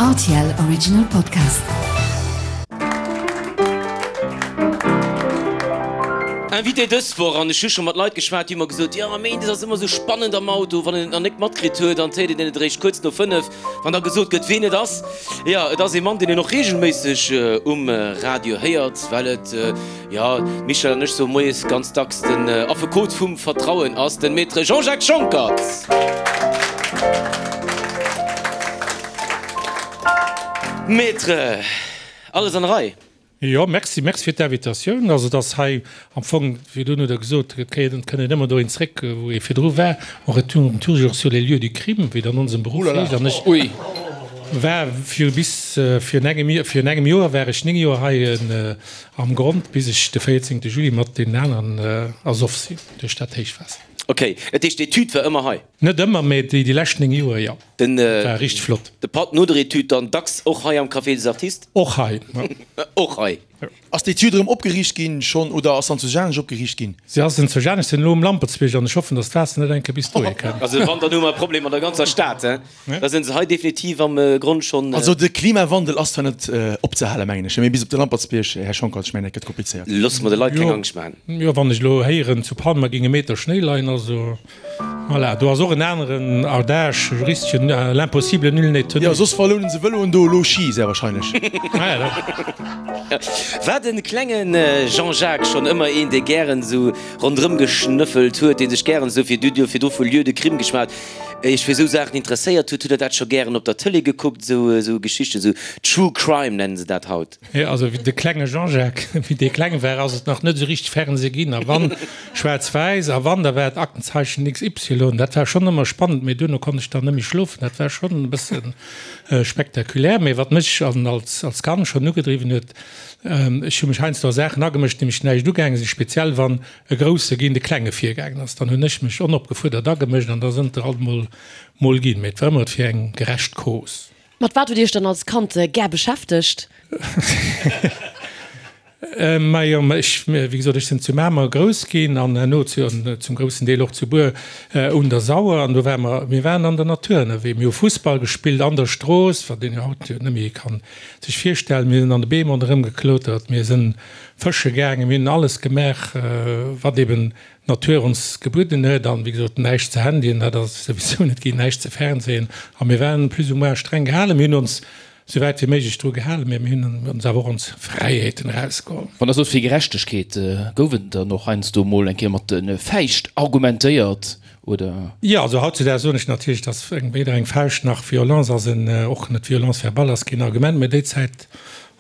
Rtl Original Podcast. Invité dës Woch, an ech hu scho mat Leit geschwat, déi hu mer gesot, jo méindes ass ëmmer esou spannend am Auto, wann een et nach nik matkritt huet, an d'héiert een et eréischt kuerz no 5, wann da gesot gëtt, ween et ass. Jo, et ass ee Mann, deen een och reegelméisseg um Radio héiert, well et, Jo, d'Michèle an ech soe moies ganz dacks, den Affekot vum Vertrauen ass den Maître Jean-Jacques Schonckert. Maître, alles an der Rei? Jo, merci, merci fir d'Invitatioun. Also et ass hei am Fong, virdrun hutt Der gesot, et kéint et kënnt een ëmmer dohin zréck, wou ee virdru war, on retourne toujours sur les lieux du crime, wéi et an onsem Beruff heescht. An ech war fir bis virun engem, virun engem Joer war ech 9 Joer hei Am Grond bis ech de 14 Juli mat deenen aneren ersoff sinn duerch dat Héichwaasser. Ok, dat heescht d'Etüd war ëmmer hei? Net ëmmer, mee déi lescht 9 Joer jo. Den Dat war richteg flott. De Patt no der Etüd dann dacks och hei am Café des Artistes? Och hei, jo. Och hei. Ass d'Etüd erëm opgeriicht ginn schonn oder ass se an zu Janesch opgeriicht ginn? Si ass en zu Janesch, sinn elo um Lampertsbierg an ech hoffen, datt d'Waasser net eng Kéier bis dohi kënnt. Also wann, dann hu mer e Problem an der ganzer Stad, he? Da sinn se hei definitiv am Grond schonn. Also de Klimawandel ass zwar net opzehalen, mengen ech, mee bis op de Lampertsbierg, Här Schonckert, ech mengen dat gëtt komplizéiert. Loosse mer de Leit keng Angscht maachen. Jo, wann ech elo héieren, zu Palma géing e Meter Schnéi leien, also voilà, do ass och en aneren Adage juristeschen, L'impossible, nul n'est tenu. Jo, soss verlounen se Vëloen do elo Ski, sehr wahrscheinlech. War de klenge Jean-Jacques schonn ëmmer een, dee gären esou ronderëm geschnëffelt huet, dee sech gären esou virdru vu Lieux de crime geschwat Iech fir esou Saachen interesséiert hutt, hutt der dat scho gären op der Tëlee gekuckt, esou esou Geschichten, esou True Crime nennen se dat haut? Jo, also wéi de klenge Jean-Jacques, wéi dee kleng war, ass et nach net esou richteg Fernseh ginn, a wann, schwaarz-wäiss, a wann, da war et Aktenzeichen XY. Dat war schonn ëmmer spannend, mee duerno konnt ech dann net méi schlofen. Dat war schonn e bësse spektakulär. Mee wat mech an als als Kand schonn ugedriwwen huet, ech hu mech heiansdo a Saachen agemëscht, déi mech näischt ugaange sinn, speziell wann e Grousse géint e Klenge virgaangen ass, dann hunn ech mech onopgefuerdert agemëscht an da sënn der alt mol mol ginn. Mee et war ëmmer fir eng gerecht Cause. Mat wat hutt Dir Iech dann als Kand gär beschäftegt? Majo, ech, wéi gesot, ech sinn zu Mamer grouss ginn an herno zu, zum groussen Deel och zu Bur un der Sauer an do ware mer, mir waren an der Natur ënnerwee. Mir hu Fussball gespillt an der Strooss, wat een jo haut jo net méi kann sech virstellen. Mir sinn an de Beem ronderëm geklotert, mir sinn Fësche gaangen, mir hunn alles gemaach, wat eben d'Natur ons gebueden huet an, wéi gesot, näischt ze Handyen, dat ass souwisou net ginn, näischt ze Fernsehen a mir waren plus ou moins streng gehalen. Mir hunn ons sou wäit wéi méiglech dru gehalen, mä mir hunn ons awer och ons Fräiheeten erausgeholl. Wann Der sot fir Gerechtegkeet, gouf et dann och heiansdo mol eng Kéier mat de Fäischt argumentéiert oder? Jo, also hautzudaags soen ech natierlech, dass weder eng Fauscht nach Violence ass en, och net Violence verbale ass keen Argument, mä déi Zäit,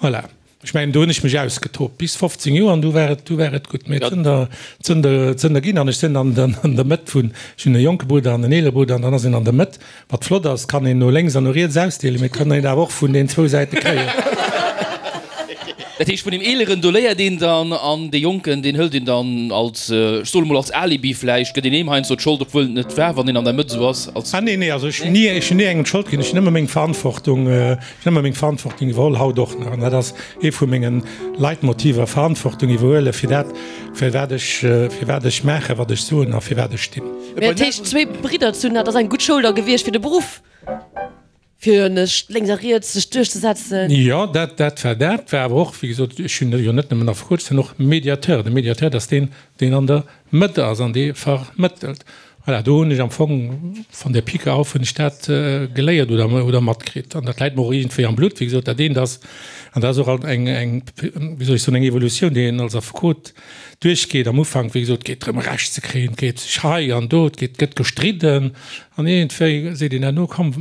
voilà. Ech mengen, do hunn ech mech ausgetoobt bis 15 Joer an du war et, du war et gutt. Mee et sënn der, et sënn der, et sënn der ginn an ech sinn an der, an der Mëtt vun, ech hunn e jonke Brudder an en eelere Brudder an dann ass een an der Mëtt. Wat flott ass, et kann een no lénks an no riets ausdeelen, mee et kann een awer och vun den zwou Säite kréien. Dat heescht, vun deem Eeleren, do léiert een dann an dee Jonken, deen hëlt een dann als, ech soen emol als Alibi vläicht, gëtt een deem heiansdo d'Schold, obwuel et net war, wann een an der Mëtt esou ass, als. Ah nee, nee, also ech hunn ni, ech hunn ni engem d'Schold ginn, ech hunn ëmmer meng Verantwortung, Ech hunn ëmmer meng Verantwortung iwwerholl, haut och nach. An dat ass ee vu menge Leitmotiver, Verantwortung iwwerhuelen fir dat, fir wat ech, fir wat ech maachen, wat ech soen a fir wat ech stinn. Mä dat heescht, zwéi Bridder ze hunn, dat ass eng gutt Schoul da gewiescht fir de Beruff, fir nech lénks a riets sech duerchzesetzen? Jo, dat, dat war dat. War awer och, wéi gesot, ech hunn jo net nëmmen Affekot, ech sinn och Mediateur. De Mediateur, dat ass deen, deen an der Mëtt ass an dee vermëttelt. Voilà, do hunn ech am Fong von der Pike auf hunn ech dat geléiert oder, oder matkritt. An dat läit mer och iergendwéi am Blutt. Wéi gesot, dat eent ass, an dat ass och alt eng, eng, wéi soll ech soen, eng Evolutioun, déi een als Affekot duerchgeet. Am Ufank, wéi gesot, geet drëm Recht ze kréien, et geet sech hei an do, et geet, gëtt gestridden an iergendwéi seet een herno, komm,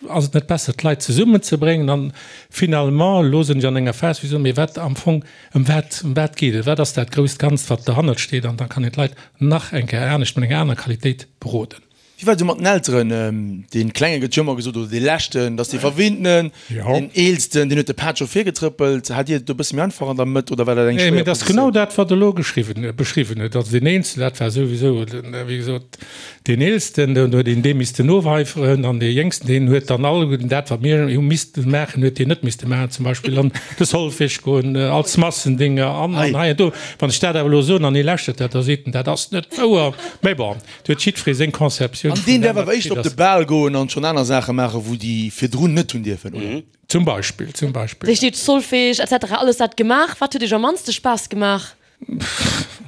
Ass et net besser, d'Leit zesummenzebréngen? An finalement, elo sinn ech an enger Phas, wou ech soen, mee wat am Fong, ëm wat, ëm wat geet et? Wat ass dat grousst Ganzt, wat derhannert steet? An da kann een d'Leit nach eng Kéier anescht, mat enger anerer Qualitéit beroden. Wéi war et esou mat den Elteren? Dee Klenge gëtt jo ëmmer gesot, oder dee Leschten, dass dee Verwinntenen, deen Eelsten, deen huet de Pad scho virgetrëppelt. Hat Dir et do e bësse méi einfach an der Mëtt oder war dat eng schwéier Positioun? Mee et ass genau dat, wat Der elo geschriwwen, beschriwwen hutt. Also deen Eelsten, dat war souwisou, wéi gesot, Deen Eelsten, deen huet een dee missten noweiferen, an dee Jéngsten, deen huet dann all dat, wat mir hu misste maachen, huet deen net misste maachen, zum Beispill an de Solfège goen, als Massendinger an an hei an do. Wann ech dat awer elo soen an hie lauschtert dat, da seet en, dat ass net wouer. Mä bon, do huet jiddweree seng Conceptioun. Generatioun. An deen däerf awer éischter op de Bal goen an schonn aner Saache maachen, wou déi virdrun net hunn dierfen, oder? Zum Beispill, zum Beispill. Wéi steet Solfège etc. Alles dat gemaach? Wat huet iech am mannste Spaass gemaach?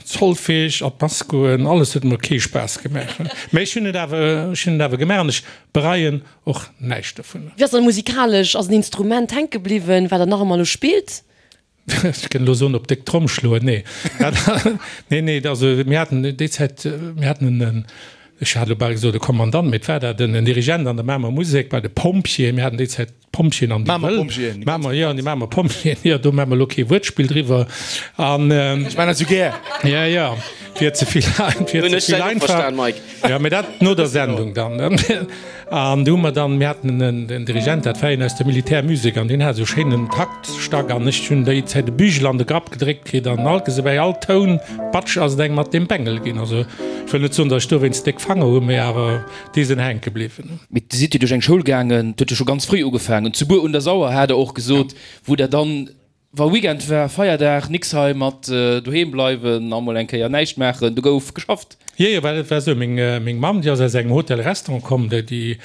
Solfège, an d'Mass goen, alles huet mer kee Spaass gemaach. Mä ech hunn et awer, ech hunn et awer gemaach an ech bereien och näischt dovunner. Wéi ass dann musikalesch? Ass en Instrument hänke bliwwen, wat der nach ëmmer elo spillt? Ech kënnt elo soen, op déck Tromm schloen. Nee, dat, nee, nee, also mir haten déi Zäit, mir haten en, ech hat elo bal gesot e Kommandant, mee et war dat, en Dirigent an der Mamer Musek bei de Pompjeeën. Mir haten déi Zäit d'Pompjeeën an déi Mamer Wëll. Pompjeeën. Mamer, jo, an déi Mamer Pompjeeën, jo, do maache mer elo kee Wuertspill driwwer. An. Ech maachen dat esou gär. Ja, ja, et wier ze vill, et wier Hunn ze ech vill dat och einfach. verstan, Mike. Jo, mee dat no der Sendung dann. An du hu mer dann, mir haten en Dirigent, dat war een aus der Militärmusek, an deen hat esou schéinen Taktstack, an ech hunn déi Zäit e Bügel an de Grapp gedréckt kritt, an alt gese bäi all Toun, batsch, ass et engem mat deem Bengel ginn. Also ech wëll net soen, datt ech dowéinst déck Fanger hunn, mee awer déi sinn hänke bliwwen. Mee Dir sidd jo duerch eng Schoul gaangen, et huet jo scho ganz fréi ugefaangen, zu Buer un der Sauer hat Der och gesot, wou Der dann Wa Weekend war, Feierdag, nix hei mat doheem bleiwen a mol eng Kéier näischt maachen, do gouf geschafft. Jo, jo, well et war esou, meng, meng Mamm, déi ass aus engem Hotel-Restaurant komm, déi, déi,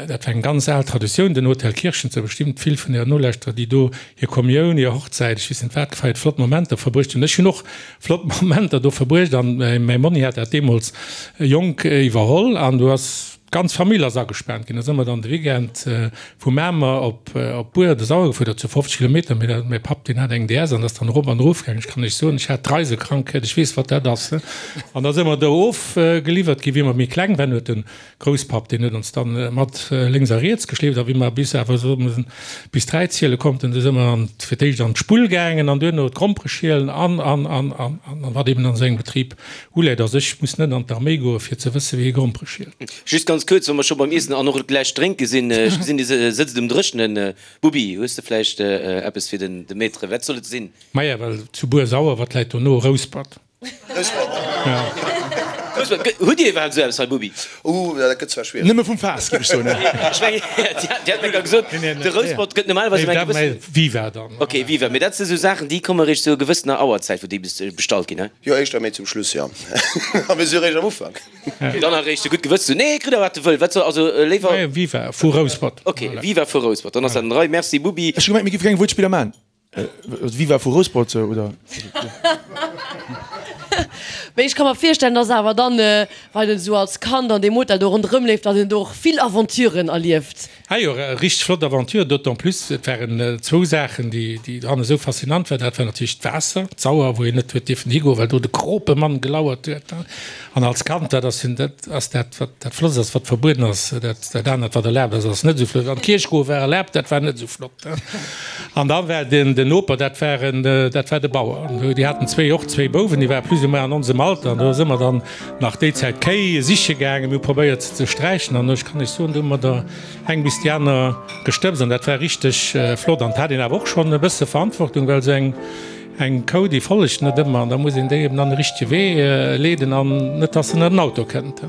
dat war eng ganz al Traditioun, den Hotel Kirchen, et si bestëmmt vill vun Ären Nolauschterer, déi do hir Kommioun, hir Hochzäit, ech weess net wat gefeiert, flott Momenter verbruecht hunn. Ech hunn och flott Momenter do verbruecht an mäi Monni hat dat deemools jonk iwwerholl an do ass, D'ganz Famill ass agespaant ginn. Da si mer dann de Weekend vu Mamer op Buer de Sauer gefuer, dat sou 50 Kilometer. Mee dat, mäi Papp, deen hat eng DS an ass dann erop an erof gaangen. Ech kann Iech soen, ech hat d'Reisekrankheet, ech weess, wat dat ass. An da si mer do ofgeliwwert ginn. Wéi mer méi kleng waren, huet de Grousspapp, deen huet ons dann mat lénks a riets geschleeft. A wéi mer bis awer esou bis 3 ziele konnten, du si mer an, fir d'éischt an d'Spull gaangen an duerno d'Grompere schielen an, an, an, an, an, an wat eben an esou engem Betrib Uläit. Also ech muss net an d'Arméi goe fir ze wësse wéi ee Grompere schielt. Just ganz kuerz, wa mer scho beim Iessen an och gläich drénke sinn, ech gesinn dir sëtzt um Dréchnen. Bubi, hues de vläicht eppes fir den de Maître? Wat soll et sinn? Maja, well zu Buer-Sauer, wat läit dono? Rouspert. Rouspert. Hutt Dir iwwerhaapt esou eppes hei, Bubi? Ooh, dat gëtt zwar schwiereg. Nëmme vum Faass, géif ech soen. Ech mengen, Dir hat mir grad gesot, de Rouspert gëtt normalerweis ëm eng gewëssen. Viva dann. Ok, Viva. Mee dat si sou Saachen, déi komme réischt zu gewëssener Auerzäit, wou déi bestallt ginn, he? Jo, éischter méi zum Schluss, jo. A mir si réischt am Ufank. Dann eréischt de gutt Gewëss zu. Nee, kritt der wat e wëll. Wat soll, also léiwer. Viva vu Rouspert. Ok, Viva vu Rouspert. Dann ass dat an der Rei. Merci, Bubi. Ech hu gemengt, mir géife keng Wuertspiller man. Viva vu Rouspert, oder? Mee ech ka mer virstellen, dass awer dann, wann een esou als Kand an deem Hotel do ronderëm leeft, dass een do och vill Aventuren erlieft. Ah jo, richteg flott Aventure, d'autant plus, et waren zwou Saachen, déi déi dran esou faszinant waren. Dat war natierlech d'Waasser, d'Sauer, wou een net huet dierfen higoen, well do de Kropemann gelauert huet. An als Kand, dat ass jo dat ass dat, wat dat Flottst ass, wat verbueden ass. Dat dat anert, wat erlaabt ass, ass net esou flott. An d'Kierch goe war erlaabt, dat war net esou flott. An da war den den Noper, dat war en dat war de Bauer. An déi haten zwéi och zwéi Bouwen, déi ware plus ou moins an onsem Alter. An do si mer dann nach déi Zäit Kéi siche gaangen, mir hu probéiert se ze sträichen an ech kann Iech soen, do hu mer der eng bis déi aner gestëbst an dat war richteg flott. An et hat een awer och schonn e bësse Verantwortung, well esou eng eng Kou, déi follegt net ëmmer an da muss een déi eben an de richtege Wee leeden an net, dass se net an den Auto kënnt.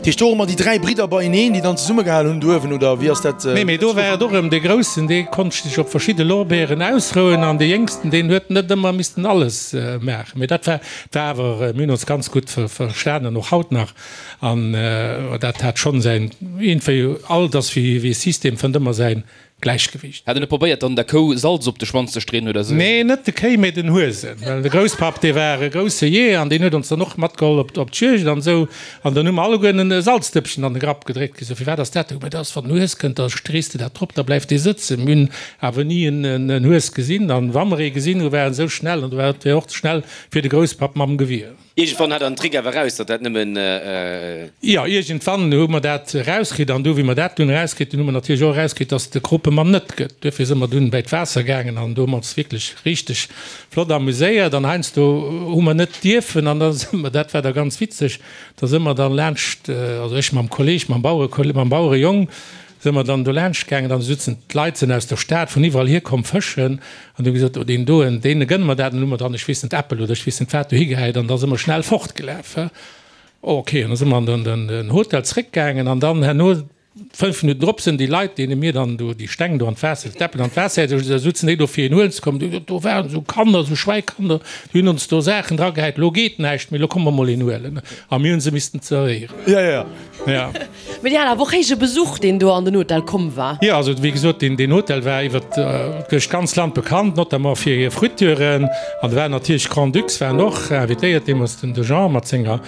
Dat heescht, do hu mer déi 3 Bridder beieneen, déi dann zesummegehal hunn do uewen, oder wéi ass dat? Nee, mee do war et och erëm dee Groussen, dee konnt sech op verschidde Lorbeeren ausrouen an dee Jéngsten, deen huet net ëmmer missten alles maachen. Mee dat war war awer, mir hunn ons ganz gutt verstanen, och haut nach, an dat hat schonn säin, iergendwéi, alt ass wéi e System, fënnt ëmmer säin Gläichgewiicht. Hat en net probéiert dann der Kou Salz op de Schwanz ze streeën oder sou? Nee, net de Kéi, mee den Huesen. Well de Grousspapp, dee war e grousse Jeeër an deen huet ons dann och matgeholl op op d'Juegd an esou. An dann hu mer alleguerten e Salzdëppchen an de Grapp gedréckt kritt. Sou, Firwat ass dat? Mä dat ass, wann den Hues kënnt, da strees de dat drop, da bleift dee sëtzen. Mir hunn awer ni en Hues gesinn. An wa mer ee gesinn hu, war en esou schnell an du war et och ze schnell fir de Grousspapp mam Gewier. Iergendwann hat der den Trick awer eraus, datt dat nëmmen. Jo, iergendwann hu mer dat erauskritt. An du, wéi mer dat dunn erauskritt hunn, hu mer natierlech och erauskritt, datt et de Kropemann net gëtt. Duerfir si mer dunn bäi d'Waasser gaangen an do hu mer ons wierklech richteg flott amuséiert. An heiansdo hu mer net dierfen an da si mer, dat war da ganz witzeg, da si mer dann laanscht, also ech mam Kolleg, mam Bauere, mam Bauerejong, Si mer dann do laanscht gaangen, dann sutzen d'Leit sinn aus der Stad vun iwwerall hier komm fëschen an hu gesot, oh deen doen, deene gënne mer dat. An hu mer dann, ech weess net, Äppel oder ech weess net wat dohi gehäit an da si mer schnell fortgelaf. Ok, an da si mer an den Hotel zréckgaangen an dann herno 5 Minutten drop sinn déi Leit, deene mir dann do déi Steng do an d'Waasser, d'Äppel an d'Waasser gehäit hu, da sutzen déi do fir een huelen ze kommen, do waren esou Kanner, esou Schwäikanner, déi hunn ons do Saachen dragehäit, elo geet näischt méi, elo komme mer mol een huelen. A mir hu se missten zerwéieren. Jo, jo, jo. Ja. Mee Dir hat awer och héije Besuch, deen do an den Hotel komm war. Jo, also wéi gesot, deen, deen Hotel war iwwer duerch d'ganz Land bekannt, notamment fir hir Fritüren. An do waren natierlech d'Grands-Ducs waren och invitéiert, deemools den de Jean mat senger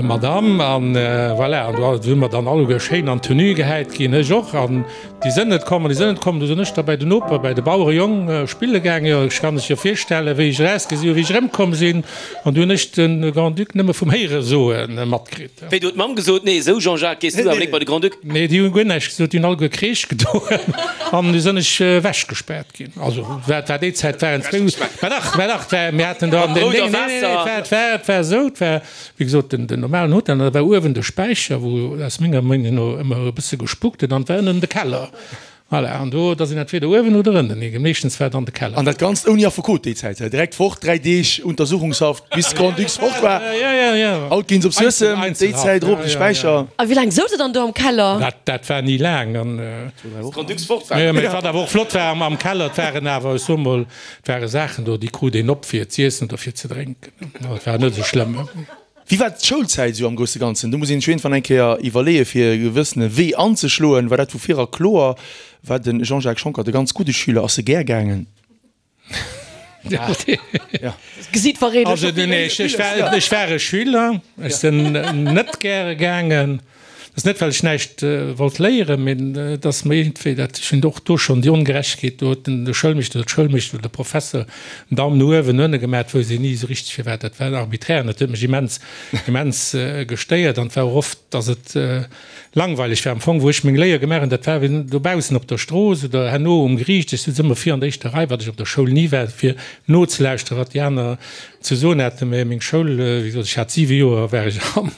Madame. An voilà, an do si mer dann alleguer schéin an Tenue gehäit ginn, ech och. An déi sënn net komm an déi sënn net komm. Du sinn ech da bäi den Noper, bäi de Bauerejong spille gaangen. Jo, ech kann lech jo virstellen, wéi ech erausgesi hunn, wéi ech erëmkomm sinn. An du hunn ech de Grand-Duc nëmme vum Héieresoe matkritt. Wéi, du huet d'Mamm gesot, Nee, esou Jean-Jacques, gees du awer nik bei de Grand-Duc? Nee, déi hunn guer näischt gesot, déi hunn alleguer Kreesch gedoen an du sënn ech ewechgespaart ginn. Also, wat war déi Zäit, waren zwou, mä dach, mä dach, war, mir haten do an den, nee, nee, nee, et war, et war, et war esou, et war, Wéi gesot, den normalen Hotel, an da war uewen de Späicher, wou aus menger Meenung no ëmmer e bësse gespukt huet, an et war ënnen de Keller. Voilà, an do, da sinn entweder uewen oder ënnen hie. Meeschtens war et an de Keller. An dat Ganzt ouni Affekot déi Zäit, direkt fort, 3 Deeg Untersuchungshaft, bis de Grand-Duc fort war. Haut ginn se op Suessem, déi Zäit erop de Späicher. A wéi laang souz der dann do am Keller? Dat, dat war ni laang. An. Bis de Grand-Duc fort war. Jo, mä wat awer och flott war am Keller, et waren awer, ech soe mol, et ware Saachen do, déi krut een op fir z'iessen oder fir ze drénken. Dat war net esou schlëmm. Wéi war d'Schoulzäit esou am grousse Ganzen? Do muss een sech iergendwann eng Kéier iwwerleeë fir e gewëssene Wee anzeschloen. War dat vu vir era kloer? War de Jean-Jacques Schonckert e ganz gudde Schüler? Ass e gär gaangen? D'Gesiit verréit elo scho vill. Ech war e Schüler, ech sinn net gäre gaangen. Dat ass net, well ech näischt wollt léieren, mee et ass mer iergendwéi dat, ech hunn och do schonn déi Ongerechtegkeet, do huet den de Schoulmeeschter oder d'Schoulmeeschtesch oder de Professer den Daum no uewen, no ënne gemaat, wousst een ni esou richteg firwat. Dat war arbiträr an dat huet mech immens, immens gestéiert an et war och oft, datt et langweileg war am Fong, wou ech meng Léier gemaach hunn, dat war wéi dobaussen op der Strooss oder herno um Geriicht. Ech sutz ëmmer vir an der éischter Rei, wat ech op der Schoul ni war, fir nozelauschteren, wat déi aner ze soen haten. Mä meng Schoul, wéi gesot, ech hat siwe Joer, war ech am.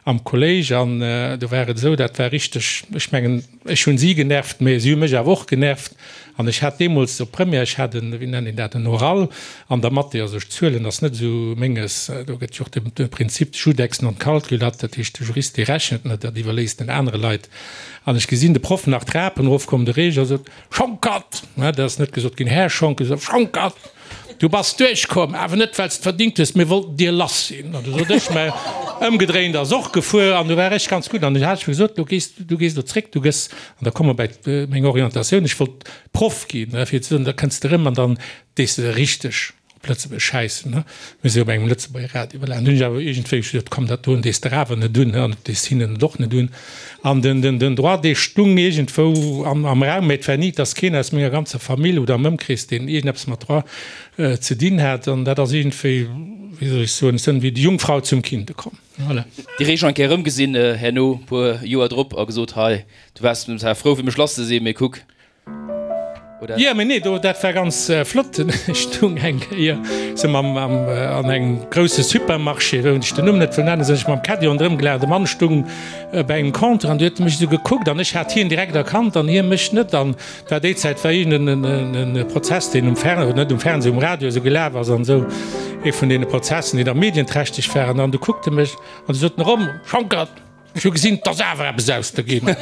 Am Kolléisch, an do war et esou, dat war richteg, ech mengen, ech hunn si genervt, mä si hu mech awer och genervt. An ech hat deemools op Première, ech hat en, wéi nennt een dat, en Oral an der Mathé, also ech, Zuelen ass net esou menges, do gëtt jo och de Prinzip judex non calculat, dat heescht, de Jurist, dee rechent net, dat iwwerléisst en anere Leit. An ech gesinn de Proff nach d'Trapen erofkommen, de Reger sot, Schonckert! Dat ass net gesot ginn, Här Schonck, Schonckert! Du bass duerchkomm, awer net well s de verdingt hues, mir wollten dir lass sinn. An du sot ech, mä ëmgedréint ass och gefuer an du war ech ganz gutt. An du hat ech mir gesot, du gees, du gees elo zréck, du gëss, an da komme mer bäi meng Orientatioun, ech wollt Proff ginn, fir ze soen, da kënns de erëm an dann dees de richteg op Lëtzebuerg schäissen, ne. Mir si op engem Lëtzebuerger Radio, voilà. An du hunn ech awer iergendwéi gesot, komm, dat doen dees de awer net un, an dat dees hinnen et och net un. An den, den, den Droit, dee stung iergendwou am, am Raum, mä et war ni, dass keen aus menger ganzer Famill oder am Ëmkrees, deen iergendeppes mat Droit ze dinn hat. An dat ass iergendwéi, wéi soll ech soen, ech sënn wéi déi Jungfrau zum Kinde komm. Voilà. Déi Reech eng Kéier erëmgesinn herno, puer Joer drop, a gesot, Hei, du waars zwar frou fir mech lass ze sinn, mee kuck, Oder? Jo, mee nee, do, dat war ganz flott. Ech stung eng Kéier sou mam, am, an engem grousse Supermarché, wou ech den Numm net wëll nennen, sinn ech mam Caddie ronderëm gelaf. De Mann stung bei engem Compteur an du huet e mech esou gekuckt an ech hat hien direkt erkannt an hie mech net. An et war déi Zäit, war iergend en e Prozess, deen um Fern, oder net um Fernseh, um Radio esou gelaf ass an esou, ee vun deene Prozessen, déi da medienträchteg waren. An du kuckt e mech an du sot en erëm, Schonckert! Ech hu gesinn, 't ass awer eppes aus der ginn.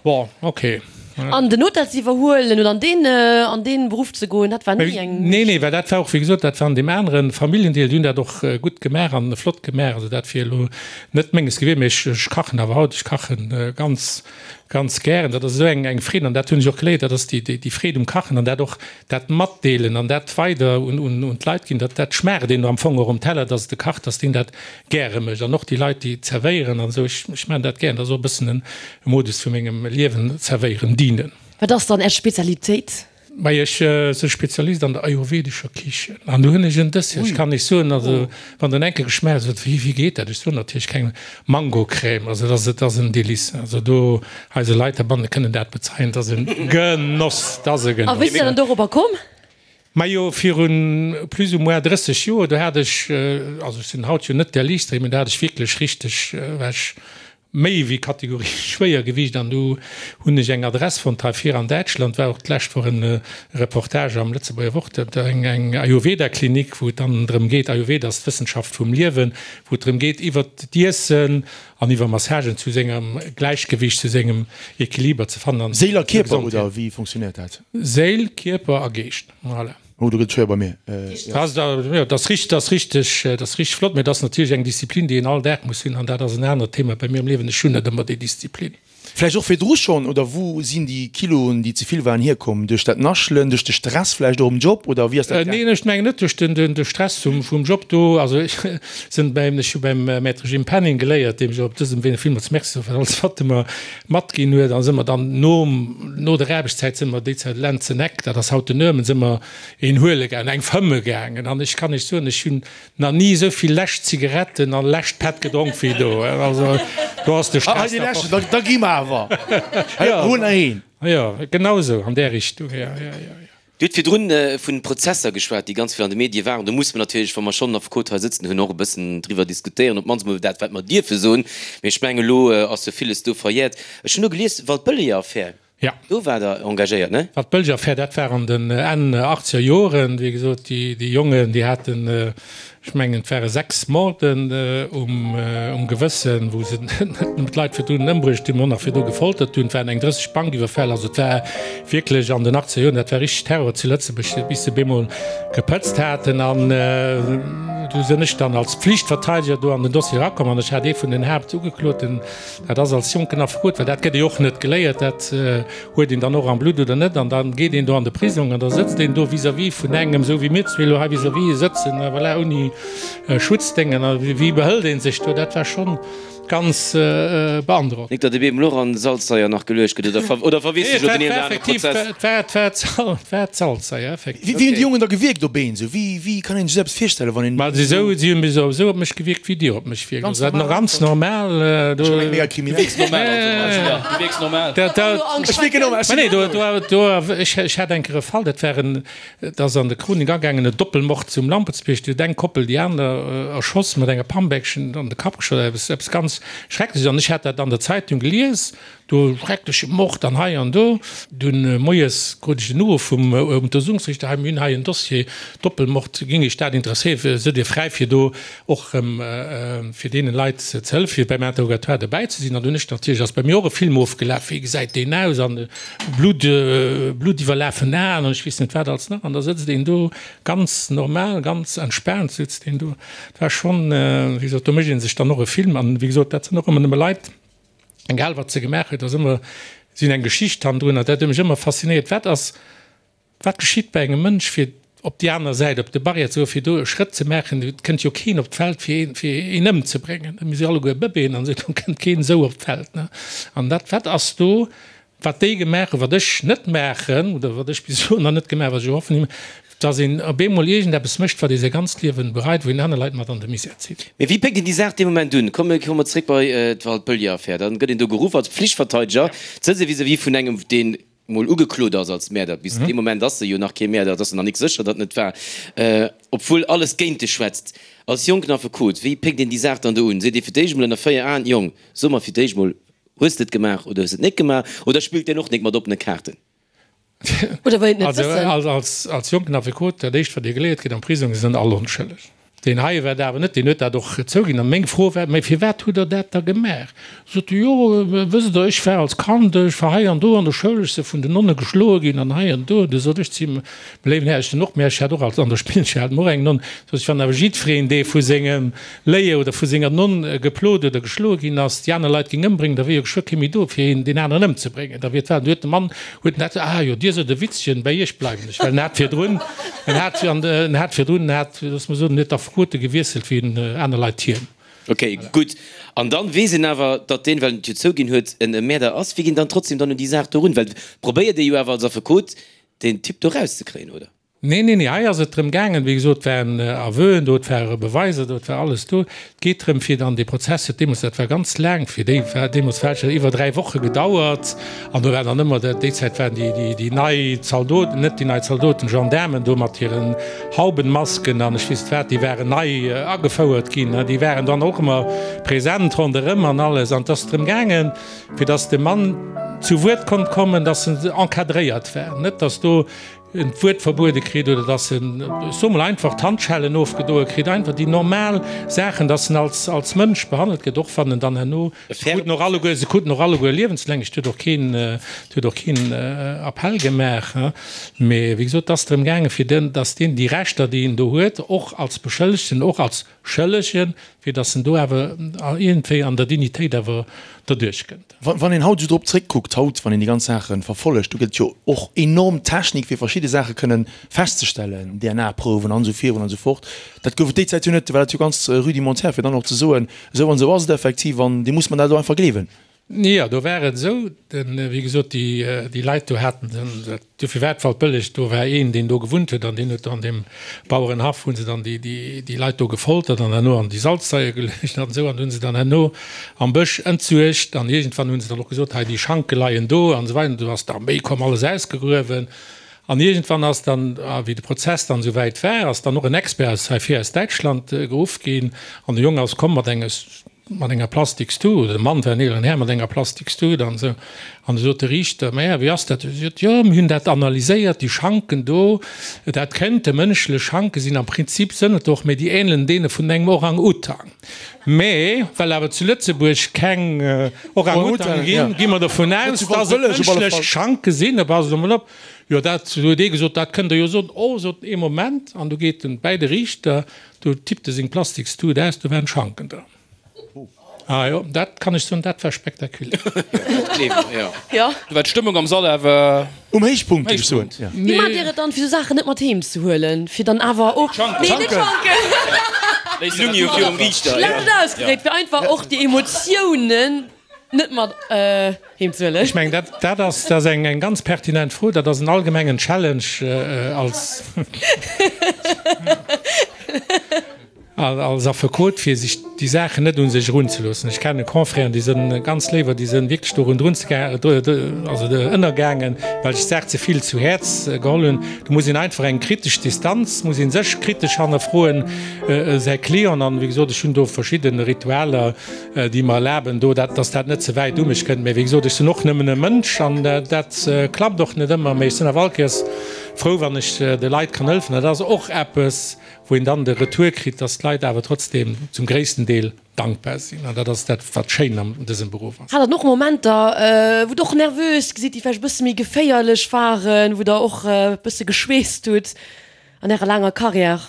Bon, ok. An den Hotel ze iwwerhuelen oder an deen, an deen Beruff ze goen, dat war ni eng. Nee, nee, well dat war och, wéi gesot, dat war an deem anere Familljendeel, déi hunn dat och gutt gemaach an flott gemaach. Also dat wier elo net menges gewiescht, mee ech, ech kachen awer haut, ech kachen ganz, ganz gären. Dat ass esou eng, eng Freed an dat hunn ech och geléiert, dat ass déi, déi, déi Freed um Kachen an dat och dat Matdeelen an dat weider un, un, un d'Leit ginn, dat, dat schmaacht een am Fong och um Teller, dass et e kacht, dass deen dat gäre mécht an och déi Leit, déi zerwéieren an esou. Ech, ech maachen dat gären, dat ass och e bëssen en Modus vu mengem Liewen, zerwéieren, dienen. Wat ass dann Är Spezialitéit? Mei, ech si Spezialist an der ayurvedescher Kichen an do hunn ech en Dessert, ech kann Iech soen, also wann Der en enke geschmaacht hutt, wéi, wéi geet dat? Ech soen natierlech keng Mangocrème, also dat ass, et ass en Délice, also do eise Leit heibanne kënnen dat bezeien, et ass e Genoss, et ass e Genoss. A wéi sidd Der dann dorobber komm? Majo, virun plus ou moins 30 Joer, do hat ech, also ech sinn haut jo net der Liichtste, mee do hat ech wierklech richteg, war ech méi wéi Kategorie Schwéiergewiicht an do hunn ech eng Adress fonnt hei vir an Däitschland, war och d'lescht Woch en Reportage am Lëtzebuerger Wort, eng Ayurveda-Klinik, wou et dann drëm geet, Ayurveda ass d'Wëssenschaft vum Liewen, wou et drëm geet iwwert d'Iessen an iwwer Massagen zu sengem Gläichgewicht, zu sengem Equiliber ze fannen an Séil a Kierper, oder wéi funktionéiert dat? Séil, Kierper a Geescht, voilà. Oh, do gëtt et schwéier bei mir. Jo, dat ass richteg, dat ass richteg, dat ass richteg flott, mä dat ass natierlech eng Disziplin, déi een all Dag muss hunn an dat ass en anert Thema bei mir am Liewen. Ech hunn net ëmmer déi Disziplin. Vläicht och virdru schonn, oder wou sinn déi Kiloen, déi ze vill waren, hierkomm? Duerch dat Naschelen, duerch de Stress vläicht och um Job, oder wéi ass dat gaangen? Neen, ech mengen net duerch de Stress vum Job do. Also ech sinn beim, ech hu beim Maître Jim Penning geléiert, deem ech och op dësem Wee villmools Merci soe fir alles wat e mer matginn huet. A si mer dann nom, no der Aarbechtszäit si mer déi Zäit Lenzeneck, dat ass haut den Nörmen, si mer een huele gaangen, eng fëmme gaangen. An ech kann Iech soen, ech hunn Nach ni esou vill lescht Zigaretten an lescht Pet gedronk wéi do. Also do ass de Stress da fort. Da gi mer awer. Hol nach een. Jo, genau esou an där Richtung. Jo, jo, jo, jo. Dir hutt virdrun vun Prozesser geschwat, déi ganz vill an de Medie waren. Do musse mer natierlech, wa mer schonn en Affekot hei sëtzen hunn, och e bëssen driwwer diskutéieren, op d'mannst emol dat, wat mer dierfe soen. Mee ech mengen, elo ass jo villes do verjäert. Ech hunn elo gelies, Waldbëlleger-Affär. Ja. Do war der engagéiert, ne? Wat d'Bëlger Affär, dat war an den Enn achtzeger Joren. Wéi gesot, déi, déi Jongen, déi haten, ech mengen, et ware 6 Morden um, um Gewëssen, wou se net nëmmen d'Leit virdrun ëmbruecht hunn, mä och nach virdru gefoltert hunn. Et waren eng 30 Bankiwwerfäll. Also et war wierklech an den achtzeger Joren, dat war richteg Terror zu Lëtzebuerg, bis se bemol gepëtzt haten. An du sinn ech dann als Pflichtverteidiger do an den Dossier erakomm an ech hat ee vun den Haaptugekloten, Dat ass als Jonken Affekot, well dat gëtt ee och net geléiert, dat huet een dann och am Blutt oder net. An da geet een do an de Prisong an da sëtzt een do vis-à-vis vun engem, esou wéi mir zwee elo hei vis-à-vis sëtzen, a voilà, ouni Schutzdéngen. A wéi behëlt ee sech do? Dat war schonn ganz beandrockend. Nik datt e beem elo an Salzsaier nach geluecht gëtt, oder oder verweess ech elo den een oder anere Prozess? Et war, et war, et war d'Salzsaier, effektiv. Wéi hunn déi Jongen da gewierkt op een esou? Wéi, wéi kann een sech esou eppes virstellen, wann een. Ma si sou, si hunn esou op mech gewierkt, wéi Dir op mech wierkt. Also dat ganz normal. Du wierks normal also Martina, du wierks normal. Ech wierken normal. Ech nee, do, do, do, ech, ech hat eng Kéier e Fall, dat war en, dat ass an de Chronik agaangen, e Doppelmord zum Lampertsbierg. Do huet eng Koppel déi aner erschoss, mat enger Pambeckchen an de Kapp geschoss, eppes, eppes ganz Schreckleches. An ech hat dat an der Zeitung gelies. Do schreckleche Mord an hei an do. Dunn moies krut ech en Uruff vum Untersuchungsriichter, hei mir hunn hei en Dossier, Doppelmord, géing Iech dat interesséieren, sidd Dir fräi fir do och erëm fir deene Leit ze hëllefen, fir beim Interrogatoire dobäi ze sinn. An dunn ech natierlech, ass bei mir och e Film ofgelaf, wéi gesäit deen aus an Blutt, bluttiwwerlafen Aen an ech weess net wat alles nach. An da sëtzt een do ganz normal, ganz entspaant sëtzt een do. Dat war schonn, wéi gesot, do mécht ee sech dann och e Film an wéi gesot, dat sinn och ëmmer nëmme Leit, Egal wat se gemaach huet, ass ëmmer si hunn eng Geschicht hannendrun an dat huet mech ëmmer faszinéiert. Wat ass, wat geschitt bei engem Mënsch fir op déi aner Säit, op de Barrière ze goen, fir do e Schrëtt ze maachen? Et kënnt jo keen op d'Feld fir een, fir een ëmzebréngen. Mir si alleguer Bëbeeën an esou, do kënnt keen esou op d'Feld, ne? An dat, wat ass do Wat déi gemaach hunn, wat ech net maachen oder wat ech bis elo nach net gemaach hunn, wat ech och hoffen, dass een op eemol iergendeppes mécht, wat ee säi ganzt Liewen bereit, wou een aner Leit mat an de Misär zitt. Mee wéi péckt een déi Saach dee Moment un? Komme komme mer zréck bei d'Waldbëlliger-Affär. Dann gëtt een do geruff als Pflichtverteideger, sëtzt ee vis-à-vis vun engem, deen mol ugeklot ass als Mäerder. Bis dee Moment ass e jo nach kee Mäerder, et ass jo nach nik sécher, datt en et war, obwuel alles géint e schwätzt. Als jonken Affekot, wéi péckt een déi Saach dann do un? Seet ee fir d'éischt emol ënner 4 Aen, Jong, so mer fir d'éischt mol, Hues de et gemaach oder hues de et net gemaach? Oder spillt deen och nik mat oppene Kaarten? Oder wëll een et net wëssen? Also als jonken Affekot, dat éischt wat dir geléiert kritt am Prisong, se sinn all onschëlleg. Deen hei war dat awer net, deen huet dat och zouginn. An meng Fro war, Mä firwat hutt der dat da gemaach? Sot e, Jo, wësst der, ech war als Kand, ech war hei an do an der Schoul, ech si vun den Nonne geschloe ginn an hei an do. Du sot ech zu him, Léiwen Här, ech sinn och, mä ech hat och als an der Spillschoul hat mer och eng Nonn, sot ech, wann awer jiddwereen, dee vu sengem Léier oder vu senger Nonn geplot oder geschloe ginn ass, déi aner Leit géing ëmbréngen, da wier jo geschwë kee méi do, fir een deen aneren ëmzebréngen. Da wier d'Welt. Du huet de Mann huet en dat, Ah jo, Dir sot e Witzchen, bei Iech bleiwen ech, well en hat virdrun, en hat an en hat virdrun, en hat, looss mer soen, en huet d'Affekote gewiesselt wéi en aner Leit hien. Ok, gutt. An dann weess een awer, datt deen, well en et jo zouginn huet, en Mäerder ass. Wéi ginn dann trotzdem dann un déi Saach do run? Well probéiert ee jo awer als Affekot, deen Typ do rauszekréien, oder? Nee, nee, nee, hei ass et drëm gaangen, wéi gesot, et waren Aveuen do, et ware Beweiser do, et war alles do. Et geet drëm, fir dann dee Prozess huet deemools, dat war ganz laang, fir déi war deemools war et iwwer 3 Woche gedauert an do war dann ëmmer, déi Zäit waren déi, déi, déi nei Zaldoten, net déi nei Zaldoten, Gendaarmen do mat hiren Haubenmasken an ech weess net wat, déi waren nei agefouert ginn, déi waren dann och ëmmer present ronderëm an alles. An et ass drëm gaangen, fir datt de Mann zu Wuert konnt kommen, datt en encadréiert war, net datt do. en d'Wuert verbuede kritt oder dass en, ech soe mol einfach, d'Handschellen ofgedoe kritt, einfach déi normal Saachen, dass en als, als Mënsch behandelt gëtt, och wann en dann herno, se kruten och alleguer, se kruten och alleguer liewenslänglech, et huet och keen, et huet och keen Appell gemaach, mee wéi gesot, et ass drëm gaangen, fir den, dass deen déi Rechter, déi en do huet, och als Beschëllegten, och als Schëllegen, fir dass en do awer iergendwéi an der Dignitéit awer derduerch kënnt. Wann een haut esou drop zréckkuckt, haut, wann een déi ganz Saache verfollegt, do gëtt et jo och enorm Technik, fir verschidde Saache kënnen festzestellen, DNA-Prouwen an esou virun an esou fort. Dat gouf et déi Zäit jo net, do war dat jo ganz rudimentär, fir dann och ze soen, esou an esou ass et effektiv an dir musst mer dat elo einfach gleewen. Jo, do war et esou, den, wéi gesot, déi, déi Leit do haten den, dat, dofir war et Waldbëlleg, do war een, deen do gewunnt huet an deen huet do an deem Bauerenhaff hu se dann déi, déi, déi Leit do gefoltert an herno an déi Salzsaier geluecht an esou an hu se dann herno am Bësch entsuergt an iergendwann hu se dann och gesot, hei déi Schanke leien do an esou weider an du ass d'Arméi komm, alles ausgegruewen an iergendwann ass dann, wéi de Prozess dann esou wäit war, ass dann och en Expert aus hei vir aus Däitschland geruff ginn an de Jong ass komm mat engem, mat enger Plastikstut, oder de Mann war en eeleren Här mat enger Plastikstut an esou, an du sot de Riichter, Mä wéi ass dat? Hie sot, Jo, mir hunn dat analyséiert, déi Schanken do, dat kénnte mënschlech Schanke sinn, am Prinzip sënn et och, mä déi ähnelen deene vun engem Orang-Utang. Mä well awer zu Lëtzebuerg keng Orang-Utange ginn, gi mer dovun aus, dass et mënschlech Schanke sinn. Da passt emol op, jo, dat huet ee gesot, dat kënnt Der jo soen. Oh, sot en, ee Moment, an du geet en bäi de Riichter, Do tippt e seng Plastikstut aus, do waren Schanken dran. Ah jo, dat kann ech soen, dat war spektakulär. Jo. Do war d'Stëmmung am Sall awer um Héichpunkt, géif ech soen. Wéi maacht Dir et dann, fir sou Saachen net mat heem ze huelen, fir dann awer och. D'Schanken. Nee, net d'Schanken. Léisst Schlecht ausgedréckt, fir einfach och déi Emotiounen net mat heem ze huelen. Ech mengen, dat, dat ass, dat ass eng, eng ganz pertinent Fro. Dat ass en allgemengen Challenge als, als Affekot, fir sech déi Saachen net un sech erunzeloossen. Ech kenne Confrèren, déi sënn ganz léiwer, déi sënn wierklech dorun drunzega-, also ënnergaangen, well sech d'Saach ze vill zu Häerz geholl hunn. Do muss een einfach eng kritesch Distanz, muss ee sech kritesch hannerfroen, säi Client. An, wéi gesot, ech hunn do verschidde Ritualer, déi mer erlaben do, dat, dass dat net ze wäit u mech kënnt. Mä wéi gesot, ech sinn och nëmmen e Mënsch an dat klappt och net ëmmer. Mä ech sinn awer all Kéiers frou, wann ech de Leit kann hëllefen. Dat ass och eppes, wou een dann de Retour kritt, dass d'Leit awer trotzdem zum gréissten Deel dankbar sinn. An dat ass dat, wat schéin an dësem Beruff ass. Hat Der och Momenter, wou Der och nervös gesitt, déi vläicht e bësse méi geféierlech waren, wou Der och e bësse geschweesst hutt an Ärer laanger Carrière?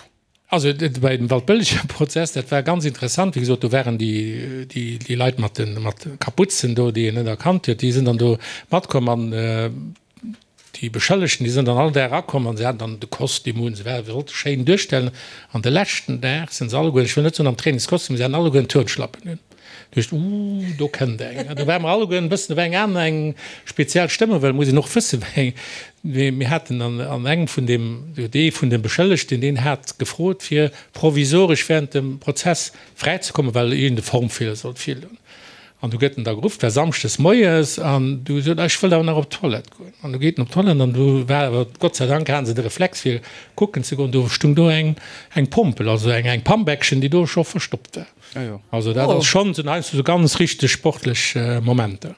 Also bei dem Waldbëlleger Prozess, dat war ganz interessant, wéi gesot, do waren déi, déi Leit mat de mat Kapuzen do, déi een net erkannt huet, déi sinn dann do matkomm an déi Beschëllegten, déi sinn dann all Dag erakomm an se haten dann de Kostüm un, se ware, wollte schéin duerstellen an de leschten Dag sinn se alleguer, ech wëll net soen am Trainingskostüm, se haten alleguer en Turnschlappen un. Duecht, Ooh, do kënnt eng. Do ware mer alleguer en bëssen, do war eng aner, eng speziell Stëmmung, well et muss een och wëssen, wéi eng, mir haten an, an engem vun deem, dee vun de Beschëllegten, deen hat gefrot, fir provisoresch während dem Prozess fräizekommen, well iergend e Formfeeler sollt virloen. An du gëtt en da geruff, et war samschdes moies, an du sot, Ech wëll awer nach op d'Toilette goen. An du geet en op d'Toilette, an du war awer, Gott sei Dank hate se de Reflex, fir kucken ze goen, do stung do eng, eng Pompel, also eng, eng Pambeckchen, déi do scho verstoppt war. Also dat ass schonn, sinn heiansdo sou ganz richteg sportlech Momenter.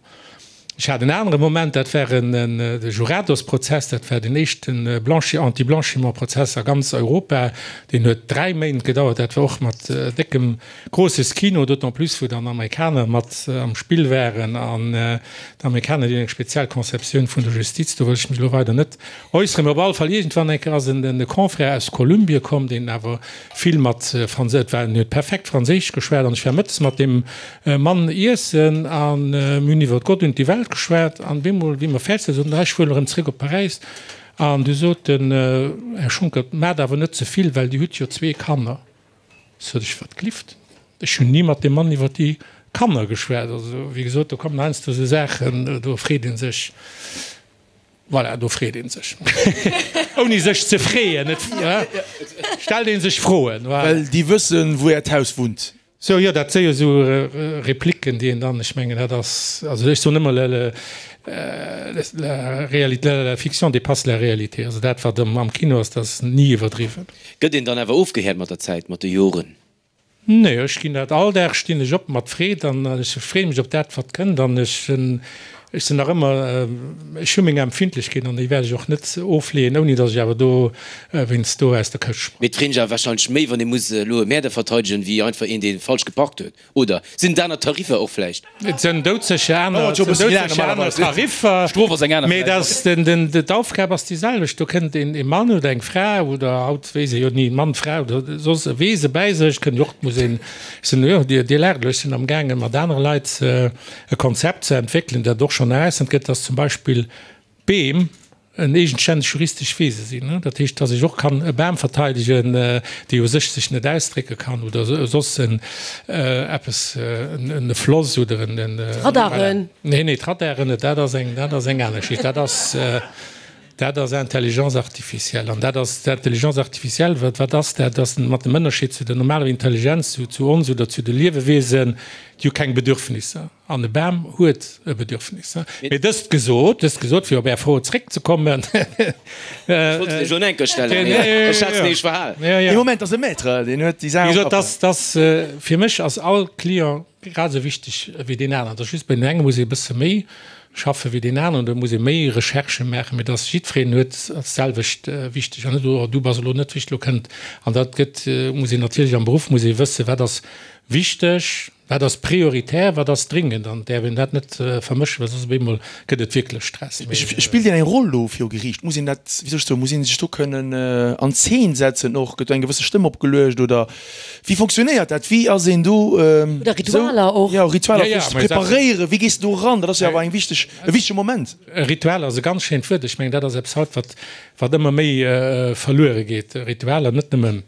Ech hat en anere Moment, dat war en de Jurados-Prozess, dat war den éischten Blanchi-, Anti-Blanchiment-Prozess a ganz Europa. Deen huet 3 Méint gedauert, dat war och mat déckem großes Kino, d'autant plus wou dann Amerikaner mat am Spill waren an d'Amerikaner, déi hunn eng speziell Conceptioun vun der Justiz, do wëll ech mech elo weider net äusseren. Mee op alle Fall, iergendwann eng Kéier ass en de Confrère aus Kolumbie komm, deen awer vill mat Franséisch, et war, en huet perfekt Franséisch geschwat an ech war mëttes mat deem Mann iessen an mir hunn iwwer Gott und die Welt geschwat an bemol, wéi mer fäerdeg waren, sot en, ech fueren erëm zréck op Paräis an du sot den Här Schonckert, maacht awer net ze vill, well Dir hutt jo zwee Kanner. Sot ech, wat glift, ech hunn ni mat deem Mann iwwer déi Kanner geschwat. Also, wéi gesot, do kommen heiansdo esou Saachen, do freet ee sech. Voilà, do freet ee sech. Ouni sech ze freeën, et stellt ee sech Froen. Voilà. Well déi wëssen, wou Äert Haus wunnt. Sou, jo, dat si jo esou Replicken, déi een dann, ech mengen, dat ass, also ech soen ëmmer, la, la réalité, la fiction dépasse la réalité. Also dat, wat am Kino ass, dat ass ni iwwerdriwwen. Gëtt een dann awer ofgehäert mat der Zäit, mat de Joren? Nee, ech ginn dat all Dag, stinn ech op mat Freed an ech freeë mech op dat wat kënnt an ech hunn. Ech sinn nach ëmmer, ech hu meng Empfindlechkeet an déi wäert ech och net ofleeën, ouni datt ech awer do wéinst do aus der Këscht sprangen. Mee et freet ech awer wahrscheinlech méi, wann ee muss elo e Mäerder verteidegen, wéi einfach een, dee falsch geparkt huet. Oder sinn et aner Tariffer och vläicht? Et sinn doudsécher aner, et sinn doudsécher aner Tariffer, mee dass den, den, d'Aufgab ass déi selwecht. Do kënnt een, ee Mann oder eng Fra oder haut weess ee jo ni, Mann, Fra oder soss e Wese bäi sech, kënnt jo och, muss een, ech sinn, jo, Dir, Dir laacht elo, ech sinn amgaange mat anere Leit e Konzept ze entwéckelen, dat och schonn erausfonnt gëtt, dass zum Beispill Beem en eegenstänneg juristesch Wese sinn. Dat heescht, dass ech och kann e Bam verteidegen, dee u sech sech net ausdrécke kann oder soss en eppes, en Floss oder en. D'Radaren. Nee, nee, d'Radaren net, dat ass eng, dat ass eng aner Geschicht. Dat ass, dat ass Intelligence artificielle. An dat ass, d'Intelligence artificielle, wat, wat ass dat? Dat ass mat dem Ënnerscheed zu der normaler Intelligenz, zu, zu ons oder zu de Liewewesen, Déi hu keng Bedürfnisser. An e Bam huet e Bedürfnis. Mee dëst gesot, dëst gesot, fir op Är Fro zréckzekommen. Ech wollt se lech elo enker stellen, mee ech hat se nämlech verhal. Dee Moment ass e Maître, deen huet déi Saach am Kapp. Wéi gesot, dass, fir mech ass all Client grad esou wichteg wéi deen aneren. Et ass just, bei deem enge muss ee e bësse méi schaffe wéi deen aneren, do muss ee méi Recherchë maachen, mee dass jiddwereen huet, ass d'selwecht wichteg. An net, oh du bass elo net wichteg, elo kënnt. An dat gëtt, muss een natierlech am Beruff muss ee wëssen, wat ass Wichteg, wat ass prioritär, wat ass dringend an et däerf een dat net vermëschen, well soss op eemol gëtt et wierklech Stress. Spillt een eng Roll do viru Geriicht? Muss een dat, wéi soll ech soen, muss ee sech do kënnen an Zeen setzen och? Gëtt do eng gewësse Stëmm opgeluecht oder wéi fonctionnéiert dat? Wéi ass een do Oder Ritualer och? Jo, Ritualer fir sech ze preparéieren. Wéi gees de do eran? Dat ass jo awer eng wichteg, e wichtege Moment. Ritualer ass e ganz schéint Wuert. Ech mengen, dat ass eppes haut, wat, wat ëmmer méi verluere geet. Ritualer, net nëmmen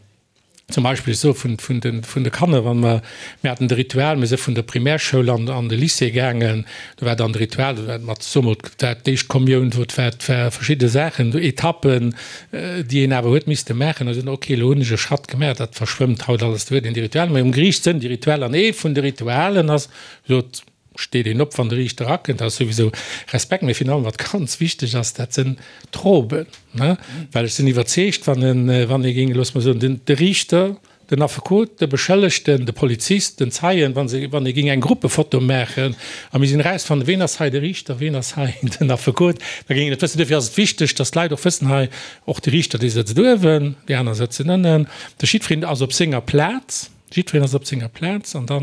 Zum Beispill, ech soe vun, vun de, vun de Kanner, wann mer, mir haten de Ritual, mir si vun der Primärschoul an, an de Lycée gaangen, do war dann de Ritual, do war mat, soe mol, et war d'éischt Kommioun, do et war, et war verschidde Saachen, do Etappen, déi een awer huet misste maachen. Da sot en, okay, elo hunn ech e Schratt gemaach, dat verschwëmmt haut alles, do huet een déi Ritualer. Mee um Geriicht sënn déi Ritualer an ee vun de Ritualen ass, sot, steet een op, wann de Riichter erakënnt, dat ass souwisou Respekt, mee virun allem, wat ganz wichteg ass, dat sënn d'Roben, ne, well ech sinn iwwerzeegt, wann en, wann ee géing, loosse mer soen, den, de Riichter, den Affekot, de Beschëllegten, de Polizist, den Zeien, wa se, wann ee géing eng Gruppefoto maachen a mir sinn erausfannen, ween ass hei de Riichter, ween ass hei den Affekot, da géing een et wëssen. Duerfir ass et wichteg, dass d'Leit och wëssen, hei, och de Riichter, dee sëtzt uewen, déi aner sëtzen ënnen, de jiddwereen ass op senger Plaz. Jiddwereen ass op senger Plaz an da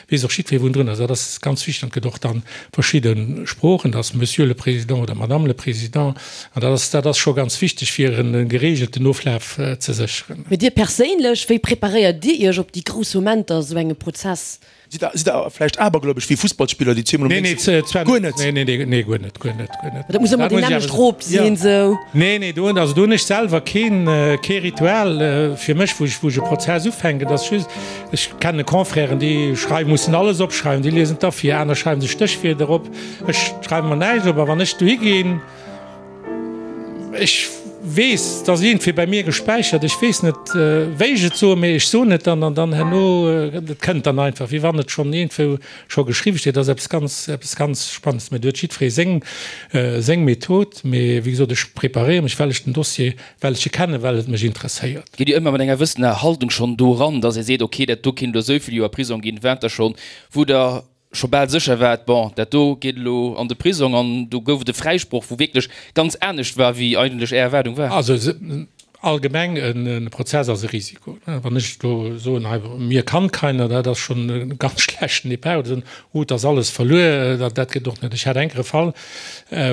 weess och jiddweree wou en drun ass. Dat ass ganz wichteg an et gëtt och dann verschidde Sproochen, dat ass Monsieur le Président oder Madame le Président an dat ass, dat ass scho ganz wichteg fir e geregelten Oflaf ze sécheren. Mee Dir perséinlech, wéi preparéiert Dir Iech op déi grouss Momenter esou engem Prozess? Sidd der, sidd der vläicht abergläubesch wéi Fussballspiller, déi zweemol um Déngscht sinn? Guer net? Nee, nee, nee, guer net, guer net, guer net. Dat muss ëmmer déi nämmlecht Rob sinn, sou. Nee, nee, do, also do hunn ech selwer keen, kee Ritual fir mech, wou ech, wou ech e Prozess ufänken. Dat ass just, ech kenne Confrèren, déi schreiwen, mussen alles opschreiwen, déi liesen da vir, aner schreiwen sech Stéchwierder op. Ech schreiwe mer näischt op a wann ech dohi ginn, Ech weess, et ass iergendwéi bei mir gespäichert, ech weess net, wéi ech et soen, mee ech soen et dann an dann herno, et kënnt dann einfach, wéi wann et schonn iergendwou scho geschriwwe steet. Dat ass eppes ganz, eppes ganz Spannendes. Mee do huet jiddweree seng, seng Method. Mee wéi gesot, ech preparéiere mech, well ech den Dossier, well ech e kennen, well et mech interesséiert. Gitt Dir ëmmer mat enger wëssener Haltung schonn do eran, dass Dir seet, okay, dat do kéint elo esou vill Joer Prisong ginn, waart Der schonn, wou Der scho bal sécher war, bon, dat do geet elo an de Prisong, an do gouf et e Fräisproch, wou wierklech ganz anescht war, wéi eigentlech Är Erwaardung war. Also allgemeng, e Prozess ass e Risiko. Wann ech elo soen, hei, mir kann keiner, dat ass schonn e ganz schlechten Départ, oder soen, oh, et ass alles verluer, dat geet och net. Ech hat enker e Fall,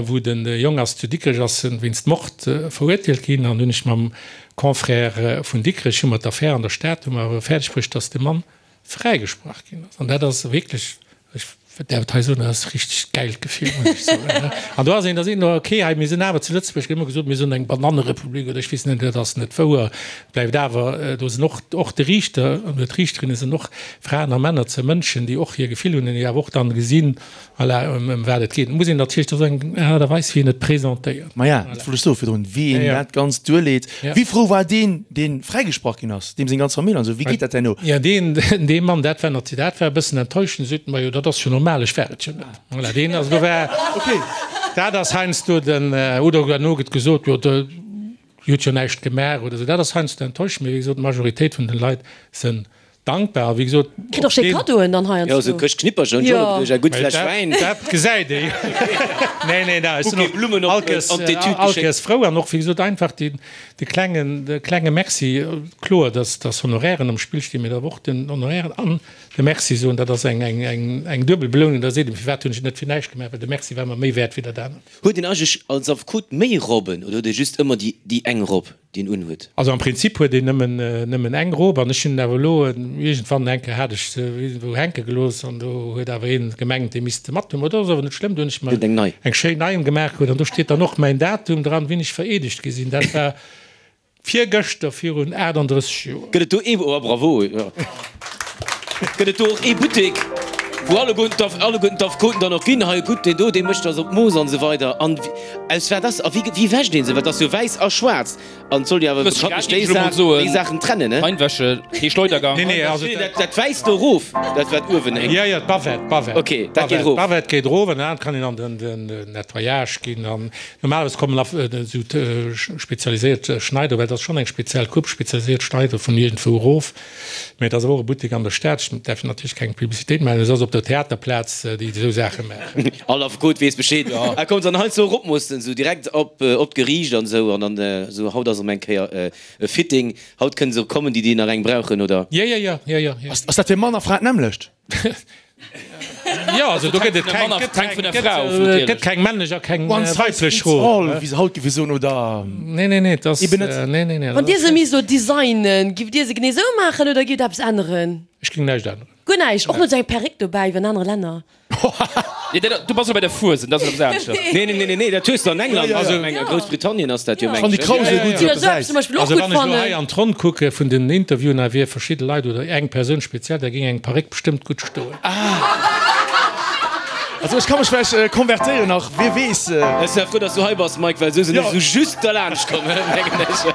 wou de Jong ass zu Dikrech, ass en wéinst Mord verurteelt ginn, an hunn ech mam Confrère vun Dikrech, hu mer d'Affär an der Stad, hu mer fäerdeg bruecht, datt de Mann fräigesprach ginn ass. An dat ass wierklech, ech däerf et hei soen, dat ass e richtegt gäilt Gefill, muss ech soen. An do ass een, da seet een, okay, hei, mir sinn awer zu Lëtzebuerg, gëtt ëmmer gesot, mir sinn eng Banannerepublik oder ech weess net, dat ass net wouer. Et bleift awer, do sinn och, och de Riichter oder d'Riichterinne sinn och Fraen a Männer, ze Mënschen, déi och hir Gefill hunn an déi awer och dann gesinn, Voilà, ëm wat et geet. Et muss een natierlech, dat ass eng Aart a Weis, wéi een et presentéiert. Maja, dat wollt ech soen virdrun, wéi een dat Ganzt duerleet. Wéi frou war deen, dee fräigesprach ginn ass, deem seng ganz Famill an esou? Wéi geet dat herno? Jo, deen, dee Mann, dat war natierlech, dat war e bëssen enttäuschend. Sot en, Majo, dat ass jo normal, ech war et jo net. Voilà, deen, also do war, dat ass heiansdo den, oder herno gëtt gesot, jo, de huet jo näischt gemaach oder esou. Dat ass heiansdo enttäuschend, mee wéi gesot, d'Majoritéit vun den Leit sënn. Dankbar, a wéi gesot, Kritt och schéi Kaddoen dann heiansdo. Jo, sou Këscht Knippercher hunn ech och elo geduecht, eng gutt Fläsch Wäin. Dat gesäit ee jo. Nee, nee, ech sinn Bouquet Blummen och op allkéiers, an d'Etüd geschéckt. allkéiers frou an och, wéi gesot, einfach deen, de klengen, de klenge Merci. Kloer, dass, dass Honorairen am Spill stinn, mee awer och den Honorairen an de Merci soen, dat ass eng, eng, eng, eng duebel Belounung. Da seet een, firwat hunn ech et net fir näischt gemaach, well de Merci war mer méi wäert wéi dat anert. Huet een eigentlech als Affekot méi Robben oder huet ee just ëmmer déi, déi eng Robb? Deen un huet. Also am Prinzip huet een nëmmen nëmmen eng Robe an ech hunn awer elo iergendwann eng Kéier hat ech se iergendwou hänke gelooss an do huet awer een gemengt dee misst se mat hunn. Mä dat ass awer net schlëmm, do hunn ech mer Eng nei. eng schéin nei gemaach krut an do steet dann och mäin Datum dran, wéini ech vereedegt gi sinn. Dat war virgëschter virun 38 Joer. Gëtt et do ee, oh bravo, jo. Gëtt et do och ee Buttek, wou alleguerten d'Aff, alleguerten d'Affekoten dann och ginn, hei gutt, deen do, dee mécht eis op d'Mooss an esou weider. An aus wat ass, a wéi, wéi wäscht ee se? Well et ass jo wäiss a schwaarz an et soll jo awer bekanntlech déi Saach, déi Saachen trennen, ne? Reinwäsche, kee Schleudergang. Nee, nee, also Nee, dat, dat Wäisst do erof, dat wat uewen héngt. Jo, jo, d'Bavette, d'Bavette. Ok, dat geet erof. D'Bavette geet erof an dann kann een an den, den Nettoyage ginn an normalerweis kommen Aff, esou spezialiséiert Schneider, well et ass schonn eng speziell Coupe, spezialiséiert Schneider vun iergendwou erof. Mä et ass awer och e Buttek an der Stad, ech däerf natierlech keng Publicitéit maachen, et ass op der Theaterplaz, déi esou Saache maachen. All Affekot weess Bescheed. A kommt dann heiansdo eropmoossen, esou direkt op op d'Geriicht an esou, an dann esou, haut ass erëm eng Kéier e Fitting, haut kënne se kommen, déi déi nach eng brauchen, oder? Jo, jo, jo, jo, jo. Ass dat fir Mann a Fra d'nämmlecht? Jo, also do gëtt et keng, gëtt keng, gëtt, gëtt keng männlech a keng One size weiblech fits all, Robe. wéi se haut géife soen, oder? Nee, nee, nee, et ass, Eben net. nee, nee, nee. Wann Dir se misst elo designen, giff Dir se genee sou maachen oder giff Der eppes änneren? Ech géing näischt änneren. Guer näischt? Och net sou eng Perréck dobäi wéi an anere Länner? Nee, dat, du bass elo bei der Fuesent, dat ass eppes aneschters. Nee, nee, nee, nee, dat hues de an England, Ja, ja, also ja. a Groussbritannien ass dat jo, Ech fann déi mengen ech. Krausel gutt esou op der Säit. Zum Beispill och Also gutt wann ech elo hei fannen. an d'Ronn kucke vun den Interviewen, hei wier verschidde Leit oder eng Persoun speziell, da géing eng Paréck bestëmmt gutt stoen. Also ech ka mech vläicht konvertéieren nach, wie weess. Ech si frou, dass du hei bass, Mike, well esou sinn ech esou just derlaanscht komm, mengen ech.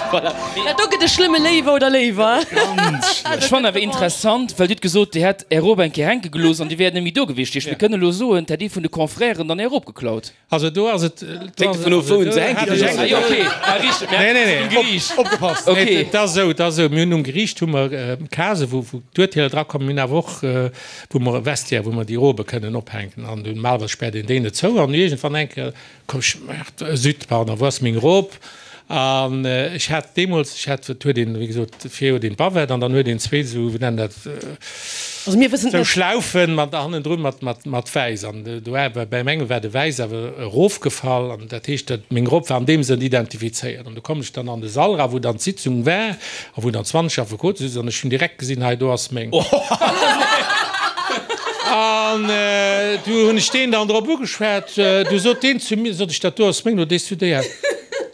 Voilà. Dat do gëtt e schlëmme Léiwer oder Léiwer. Ech fannen awer interessant, well Dir hutt gesot, Dir hätt Är Robe eng Kéier hänke gelooss an Dir wäert net méi do gewiescht. Mir kënnen elo soen, 't hätt ee vun de Confrèren dann Är Robe geklaut. Also do ass et. Hänkt dovun of, wou en se hänke gelooss huet. Ah jo, okay, ah richteg, Nee, nee, nee. um Geriicht. Opgepasst! Okay. Nee, et ass esou, et ass esou, mir hunn um Geriicht hu mer Case wou wou d'Urteeler drakommen, mir hunn awer och wou mer e Vestiaire, wou mer déi Robe kënnen ophänken an normalerweis späert een déi net zou an iergendwann eng Kéier koum ech, Merde, zut, pardon, wou ass meng Rob? An ech hat deemools, ech hat, et huet een, wéi gesot, vir huet een d'Bavette an dann huet een zwee esou, wéi nennen dat, Also mir wëssen et esou net. Schlaufen mat hannendrun mat, mat, mat Wäiss. An do war, bei mengem war de Wäiss awer erofgefall an dat heescht, dat meng Robb war an deem Sënn identifizéiert. An du komm ech dann an de Sall era, wou dann d'Sitzung war a wou dann 20 Affekote sitzen an ech hunn direkt gesinn, hei do ass meng. An du hunn ech deen dann drop ugeschwat, du sot deen zu mir, sot ech, dat do ass meng, do dees du déi aus.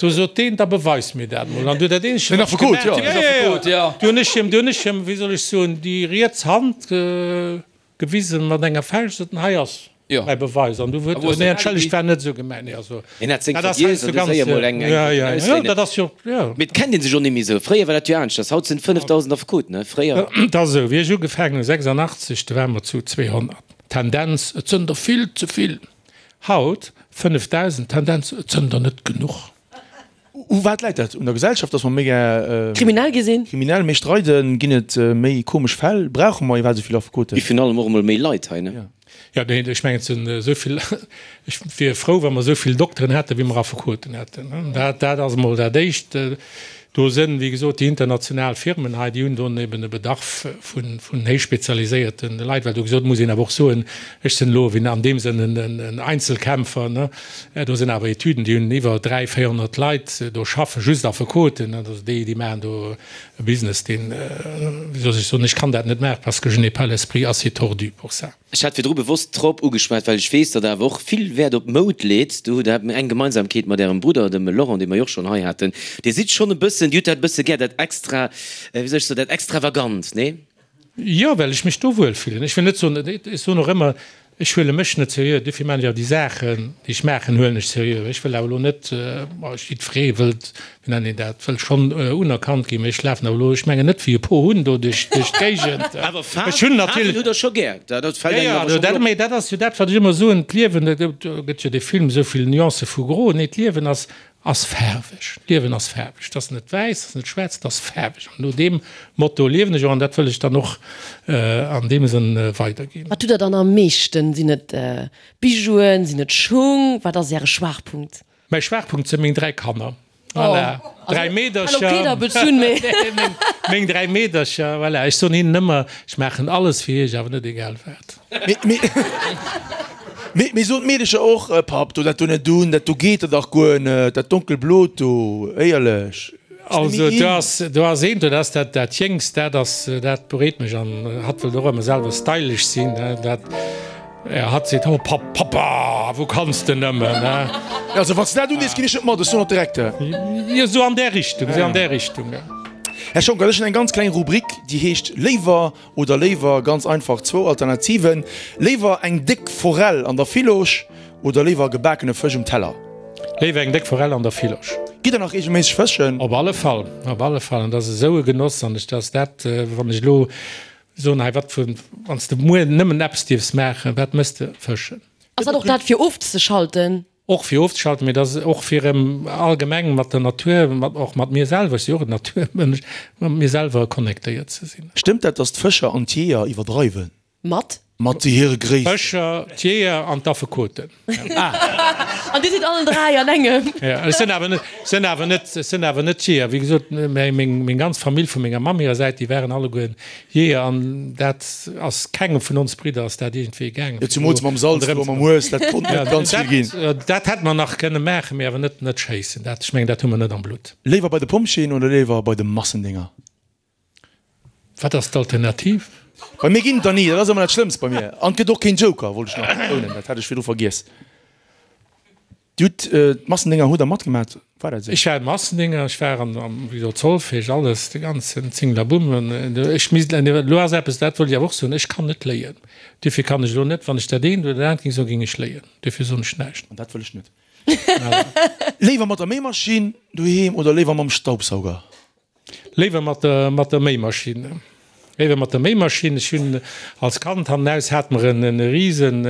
Du sot deen, da beweis mir dat mol. An du dat eenzegt, wat ech gemaach hunn, Den Affekot, jo. Du hunn ech him, du hunn ech him, wéi soll ech soen, déi riets Hand gewisen mat enger Fauscht, sot en, hei ass mäi Beweis. An du huet, nee, entschëllegt, war net esou gemengt. Nee, also, Hien hat seng dat ass vergiess heiansdo an du ganz, séier mol eng, eng jo, jo, jo, ausléinen. dat ass jo, jo. Mee et kennt ee sech och net méi esou. Fréier war dat jo aneschters. Haut sinn et 5.000 Affekoten, ne? Fréier. Et ass esou, wéi ech ugefaangen hunn, 86, do ware mer zu 200. Tendenz, et sënn der vill ze vill. Haut 5.000, Tendenz, et sënn der net genuch. U wat läit dat? Un der Gesellschaft, datt mer méi gär. Kriminell gi sinn? Kriminell, méi streiden? Ginn et méi komesch Fäll? Brauche mer iwwerhaapt esou vill Affekoten? Virun allem och emol méi Leit hei, ne? Jo, nee, ech mengen, et sinn esou vill, ech wier frou, wa mer esou vill Dokteren hätten, wéi mer Affekoten hätten. Dat, dat ass emol dat Éischt. Do sënn, wéi gesot, déi international Firmen hei, déi hunn do eben e Bedarf vun, vun héich spezialiséierte Leit, well do gesot muss een awer och soen, ech sinn elo wéi an deem Sënn en, en Einzelkämpfer, ne. Do sinn awer Etüden, déi hunn iwwer 300, 400 Leit do schaffen, just Affekoten, ne, also déi, déi maachen do e Business, deen, wéi soll ech soen, ech kann dat net maachen, parce que je n'ai pas l'esprit assez tordu pour ça. Ech hat virdru bewosst d'Robb ugeschwat, well ech weess, datt Der awer och vill Wäert op Moud leet. Do hutt Der eng Gemeinsamkeet mat Ärem Brudder, dem Laurent, dee mer jo och schonn hei haten. Dir sidd schonn e bëssen, Dir hutt dat e bësse gär, dat extra, wéi soll ech soen, dat Extravagant, nee? Jo, well ech mech do wuel fillen. Ech wëll net soen, ech soen och ëmmer, ech huele mech net seriö, dofir maachen ech awer déi Saachen, déi ech maachen, huelen ech seriö. Ech wëll awer elo net, jiddweree wëllt Wéi nennt een dat, wëll schonn unerkannt ginn, mee ech lafen awer elo, ech mengen net wéi e Pohunn do duerch d'Géigend. Awer Ech Faarwen, hunn Faarwen natierlech. hutt Der scho gär, dat dat fält Jo, engem jo, awer also scho dat, mol op. mee dat ass jo dat, wat ech ëmmer soen, d'Liewen, do gëtt jo dee Film esou vill Nuancë vu Gro, nee, d'Liewen ass. Ass faarweg. D'Liewen ass faarweg. Et ass net wäiss, et ass net schwaarz, et ass faarweg. An no deem Motto liewen ech och an dat wëll ech dann och an deem Sënn weiderginn. Wat hutt Der dann am meeschten? Sinn et Bijouen, sinn et Schung? Wat ass Äre Schwaachpunkt? Mäi Schwaachpunkt si meng 3 Kanner. Voilà, 3 Meedercher. Meng 3 Meedercher, voilà. Ech soen hinnen ëmmer, ech maachen alles fir iech, awer net egal wat. Mee soen d'Meedecher och, Papp, do dat do net un, dat do geet der dach guer net, dat donkelblot do, éierlech. Also do ass, do ass eent, dat ass dat, dat Jéngst, dat ass, dat bereet mech an hatt wëllt och ëmmer selwer stylish sinn, dat, ja, hatt seet, Oh Papp, Pappa, wou kanns de nëmmen, ne? Also wann s de dat undees, ginn ech net mat, ech soen dat direkt. Jo, sou an där Richtung, sou an där Richtung, ja. Här Schonckert, ech hunn eng ganz kleng Rubrik, déi heescht Léiwer Oder léiwer, ganz einfach zwou Alternativen, léiwer eng déck Forell an der Villosch oder léiwer gebakene Fësch um Teller? Léiwer eng déck Forell an der Villosch. Gitt der nach reegelméisseg fëschen? Op alle Fall, op alle Fall. An dat ass esou e Genoss. An ech, dat ass dat, wann ech elo soen, hei wat vu, wann s de muer nëmmen eppes dierfs maachen, wat méchs de? Fëschen. Ass dat och dat fir ofzeschalten? Och fir ofzeschalten, mee et ass och fir erëm allgemeng mat der Natur, mat och mat mir selwer, ech si och en Naturmënsch, mat mir selwer connectéiert ze sinn. Stëmmt dat, dass d'Fëscher an d'Jeeër iwwerdreiwen? Mat? Mat hire Gréissten. D'Fëscher, d'Jeeër an d'Affekoten. An dir sidd allen 3 an engem. Jo, ech sinn awer net, sinn awer net, sinn awer net Jeeër. Wéi gesot, meng, meng ganz Famill vu menger Mamm hirer Säit, déi waren alleguer Jeeër, an dat ass kengem vun ons Bridder ass dat iergendwéi gaangen. Jo, zumools mam Salz do a mam Hues, dat konnt net ganz vill ginn. Dat hätt mer nach kënne maachen, mee awer net net schéissen. Dat, ech mengen, dat hu mer net am Blutt. Léiwer bei de Pompjeeën oder léiwer bei de Massendénger? Wat ass d'Alternativ? Bei mir ginn et der ni, dat ass ëmmer dat Schlëmmst bei mir. An et gëtt och keen Joker, wollt ech nach betounen, dat hat ech virdru vergiess. Dir hutt d'Massendénger, hutt der matgemat? War dat esou? Ech war Massendénger, ech war an, am, wéi gesot, Solfège, alles, de ganzen Zinglabumm. An ech misst, elo ass eppes, dat wollt ech awer och soen, ech kann net léien. Duerfir kann ech elo net, wann ech dat eent oder dat anert géing soen, géing ech léien. Duerfir soen ech näischt. An dat wëll ech net. Léiwer mat der Méimaschinn doheem oder léiwer mam Staubsauger? Léiwer mat der mat der Méimaschinn. Léiwer mat der Méimaschinn. Ech hunn als Kand hannenaus hate mer en e risen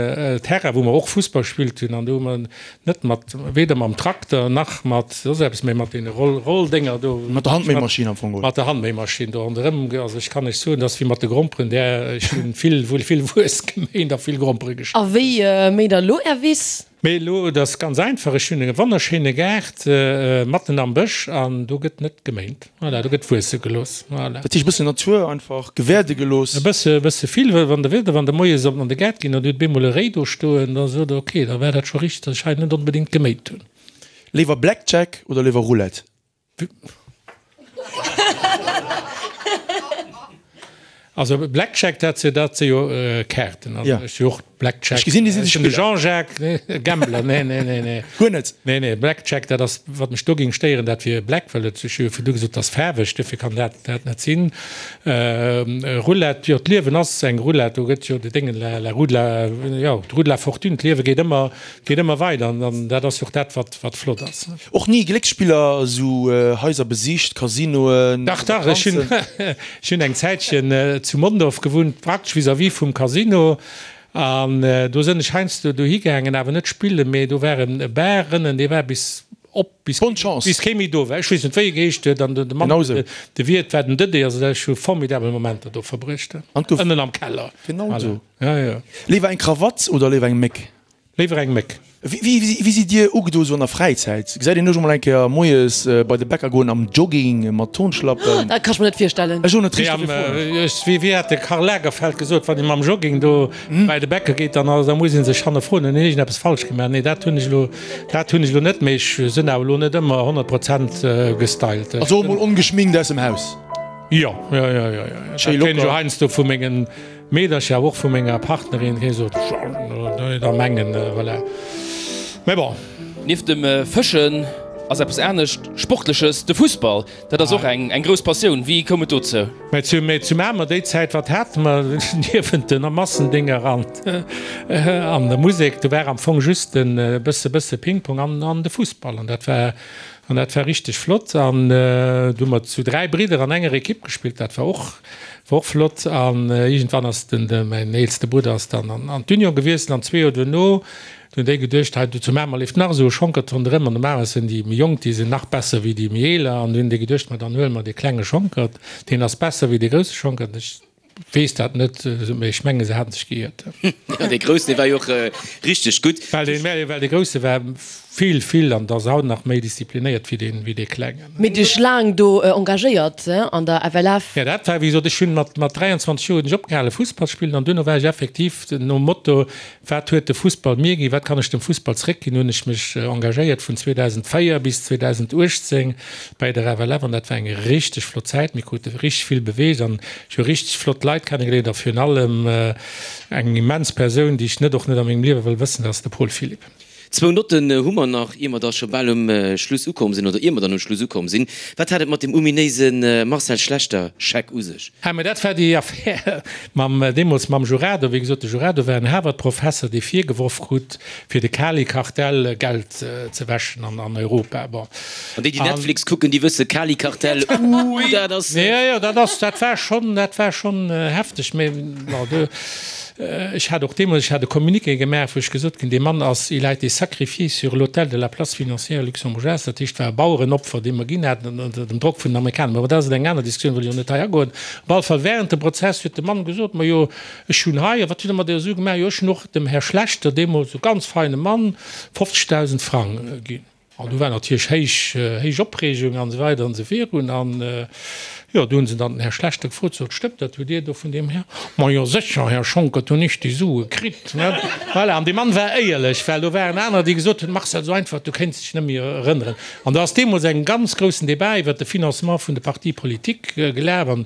Terrain, wou mer och Fussball gespillt hunn an do hu mer net mat, weder mam Trakter nach mat soss eppes, mä mat deene Roll Rolldénger do. Mat der Handméimaschinn am Fong, oder? Mat der Handméimaschinn do ronderëm. Also ech kann lech soen, dass wéi mat de Gromperen, där ech hunn vill vill Wues geméint a vill Grompere geschnidden. A wéi méint der elo Är Wiss? Mee elo, et ass ganz einfach, ech hunn e wonnerschéine Gaart matten am Bësch an do gëtt net geméint. Voilà, do gëtt wuesse gelooss. Voilà. Dat heescht e bëssen Natur einfach gewäerde gelooss. E bësse, e bësse vill, well wann der wëllt, wann der moies op an de Gaart ginn an dir hutt bemol e Réi do stoen, da sot der, ok, da war dat scho richteg, datt ech hei net onbedéngt geméint hunn. Léiwer Blackjack oder léiwer Roulette? Also Blackjack, dat si dat si jo Kaarten. Also ech si och Blackjack. Ech gesinn, Dir sidd e Spiller. Jean-Jacques, nee, Gambler, nee, nee, nee, nee. Guer net? Nee, nee, Blackjack, dat ass, wat mech do géing stéieren, dat wier Black, well et, ech hu jo virdu gesot, dat ass faarweg, duerfir kann dat dat net sinn. Roulette, jo, d'Liewen ass eng Roulette, do gëtt jo de Déngen, la, la roue de la, jo, d'Roue de la fortune, d'Liewe geet ëmmer, geet ëmmer weider an dat ass jo och dat, wat, wat flott ass. Och ni Glécksspiller, esou Haiser besicht, Casinoen, Dach, dach, ech hunn, ech hunn eng Zäitchen zu Mondorf gewunnt, praktesch vis-à-vis vum Casino an do sënn ech heiansdo dohi gaangen, awer net spillen, mee do war e Bar ënnen, dee war bis op, bis, Bonne Chance. bis kee méi do war. Ech weess net, wéi e geheescht huet an de Mann, Genau esou. de Wiert war den Dëdé, also ech hu formidabel Momenter do verbruecht, An gouf. ënnen am Keller. Genau Voilà. esou. Ja, ja. Léiwer eng Krawatt oder léiwer eng Méck? Léiwer eng Méck. Wéi sidd Dir ugedo sou an der Fräizäit? Gesäit een iech och mol eng Kéier moies bei de Bäcker goen am Jogging mat Turnschlappen? Dat kann ech mer net virstellen. Ech och net richteg fir froen. Wéi hat de Karl Lagerfeld gesot, wann ee mam Jogging do bei de Bäcker geet, dann da muss ee sech hannerfroen, hunn ech iergendeppes falsch gemaach? Nee, dat hunn ech elo, dat hunn ech elo net, mee ech sinn awer elo net ëmmer 100 Prozent gestylt. Also och mol ongeschminkt aus dem Haus? Jo, jo, jo, jo, jo. Dat kréien ech jo heiansdo vu mengen Meedercher, awer och vu menger Partnerin, déi sot, da mengen, voilà. Mais bon. Nieft dem Fëschen ass eppes anescht Sportleches, de Fussball. Dat ass och eng grouss Passioun. Wéi koum et dozou? Mä zu, mä zu Mamer déi Zäit, wat hate mer niewent den Massendénger an, an der Musek? Do war am Fong just e bësse, bësse Ping-Pong an, an de Fussball. An dat war. An dat war richteg flott. An du hu mer zu 3 Bridder an enger Ekipp gespillt. Dat war och, war och flott. An iergendwann ass den, de, mäin eelste Brudder ass dann an, an d'Union gewiesselt. An zwee Joer duerno, du hunn déi geduecht, hei do zu Mamer leeft nach esou e Schonkert ronderëm. An normalerweis sinn déi méi Jonk, déi sinn nach besser wéi déi méi Eeler. An du hunn déi geduecht, ma dann huele mer dee klenge Schonkert, deen ass besser wéi dee grousse Schonkert. Ech Weess dat net, mee ech menge se haten sech geiert. Jo, dee Groussen, dee war jo och richteg gutt. Well dee, well dee Grousse war vill, vill an ass haut nach méi disziplinéiert wéi dee, wéi dee Klengen. Mee dech laang do engagéiert an der FLF? Jo, dat war, wéi gesot, ech hunn mat, mat 23 Joer hunn ech opgehale Fussball spillen an duerno war ech effektiv nom Motto, Wat huet de Fussball mir ginn, wat kann ech dem Fussball zréckginn, hunn ech mech engagéiert vun 2004 bis 2018 bei der FLF an dat war eng richteg flott Zäit. Mir krute richteg vill beweegt an ech hu richteg flott Leit kennegeléiert a virun allem eng immens Persoun, déi ech net och net a mengem Liewe wëll wëssen, dat ass de Paul Philipp. Zwou Notten hu mer nach, ier mer da scho bal um Schluss ukomm sinn, oder ier mer dann um Schluss ukomm sinn. Wat hat et mat dem ominéise Marcel Schlechter-Scheck u sech? Ah, mä dat war déi Affär mam, deemools mam Jurado. Wéi gesot, de Jurado war en Harvard-Professer, dee virgeworf krut, fir de Kali-Kartell Geld ze wäschen an Europa. Bon. An déi, déi Netflix kucken, déi wësse, Kali-Kartell, ui, dat ass. Jo, jo, dat ass, dat war schonn, dat war schonn hefteg. Mä bon, do. Ech hat och deemools, ech hat e Communiqué gemaach, wou ech gesot hunn, dee Mann ass, il a été sacrifié sur l'autel de la place financière luxembourgeoise, dat heescht, war e Bauerenopfer, dee mer ginn haten ënner dem Drock vun den Amerikaner. Mä bon, dat ass eng aner Diskussioun, wëll ech och net hei agoen. Op alle Fall, während dem Prozess huet de Mann gesot, Majo, ech hunn hei, a wat hutt Der mat deeër Su gemaach? Jo, ech hunn och dem Här Schlechter, deemools e ganz feine Mann, 50.000 Frang ginn. An du war natierlech héich, héich Opreegung an esou weider an esou virun. An, jo, du hunn se dann den Här Schlechter gefrot, sot, Stëmmt dat, hutt Dir do vun deem Här? Ma jo sécher, Här Schonckert, hunn ech déi Sue kritt, ne? Voilà, an dee Mann war éierlech, well do waren anerer, déi gesot hunn, Marcel, esou einfach, du kéints dech net méi erënneren. An do ass deemools eng ganz groussen Debat iwwert de Financement vun de Partis politiques gelaf. An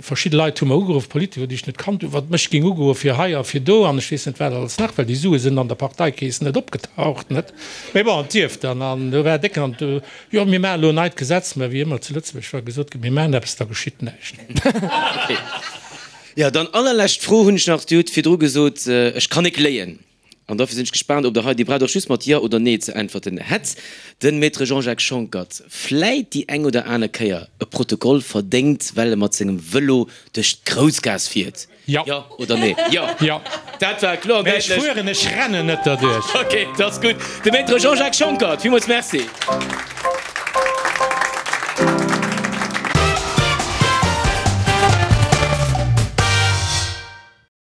Verschidde Leit hu mer ugeruff, Politiker, déi ech net kannt hunn, wat mech géing ugoe fir hei a fir do an ech weess net wat alles nach, well déi Sue sinn an der Parteikeess net opgetaucht, net? Mee bon, et dierf dann. An do war décken an do, jo, mir maachen elo en neit Gesetz, mä wéi ëmmer zu Lëtzebuerg, wa gesot gëtt, mir maachen eppes, da geschitt näischt. Jo, dann allerlescht Fro hunn ech nach, Dir hutt virdru gesot, ech kann nik léien. An dofir sinn ech gespaant, ob Der hei, Dir braucht och just mat Jo oder Nee ze äntwerten, hätt de Maître Jean-Jacques Schonckert vläit déi eng oder aner Kéier e Protokoll verdéngt, well e mat sengem Vëlo duerch d'Groussgaass fiert? Jo. Jo oder Nee? Jo. Jo. Dat war kloer an Mä ech däitlech. fueren, ech rennen net derduerch. Ok, dat ass gutt. De Maître Jean-Jacques Schonckert, villmools Merci.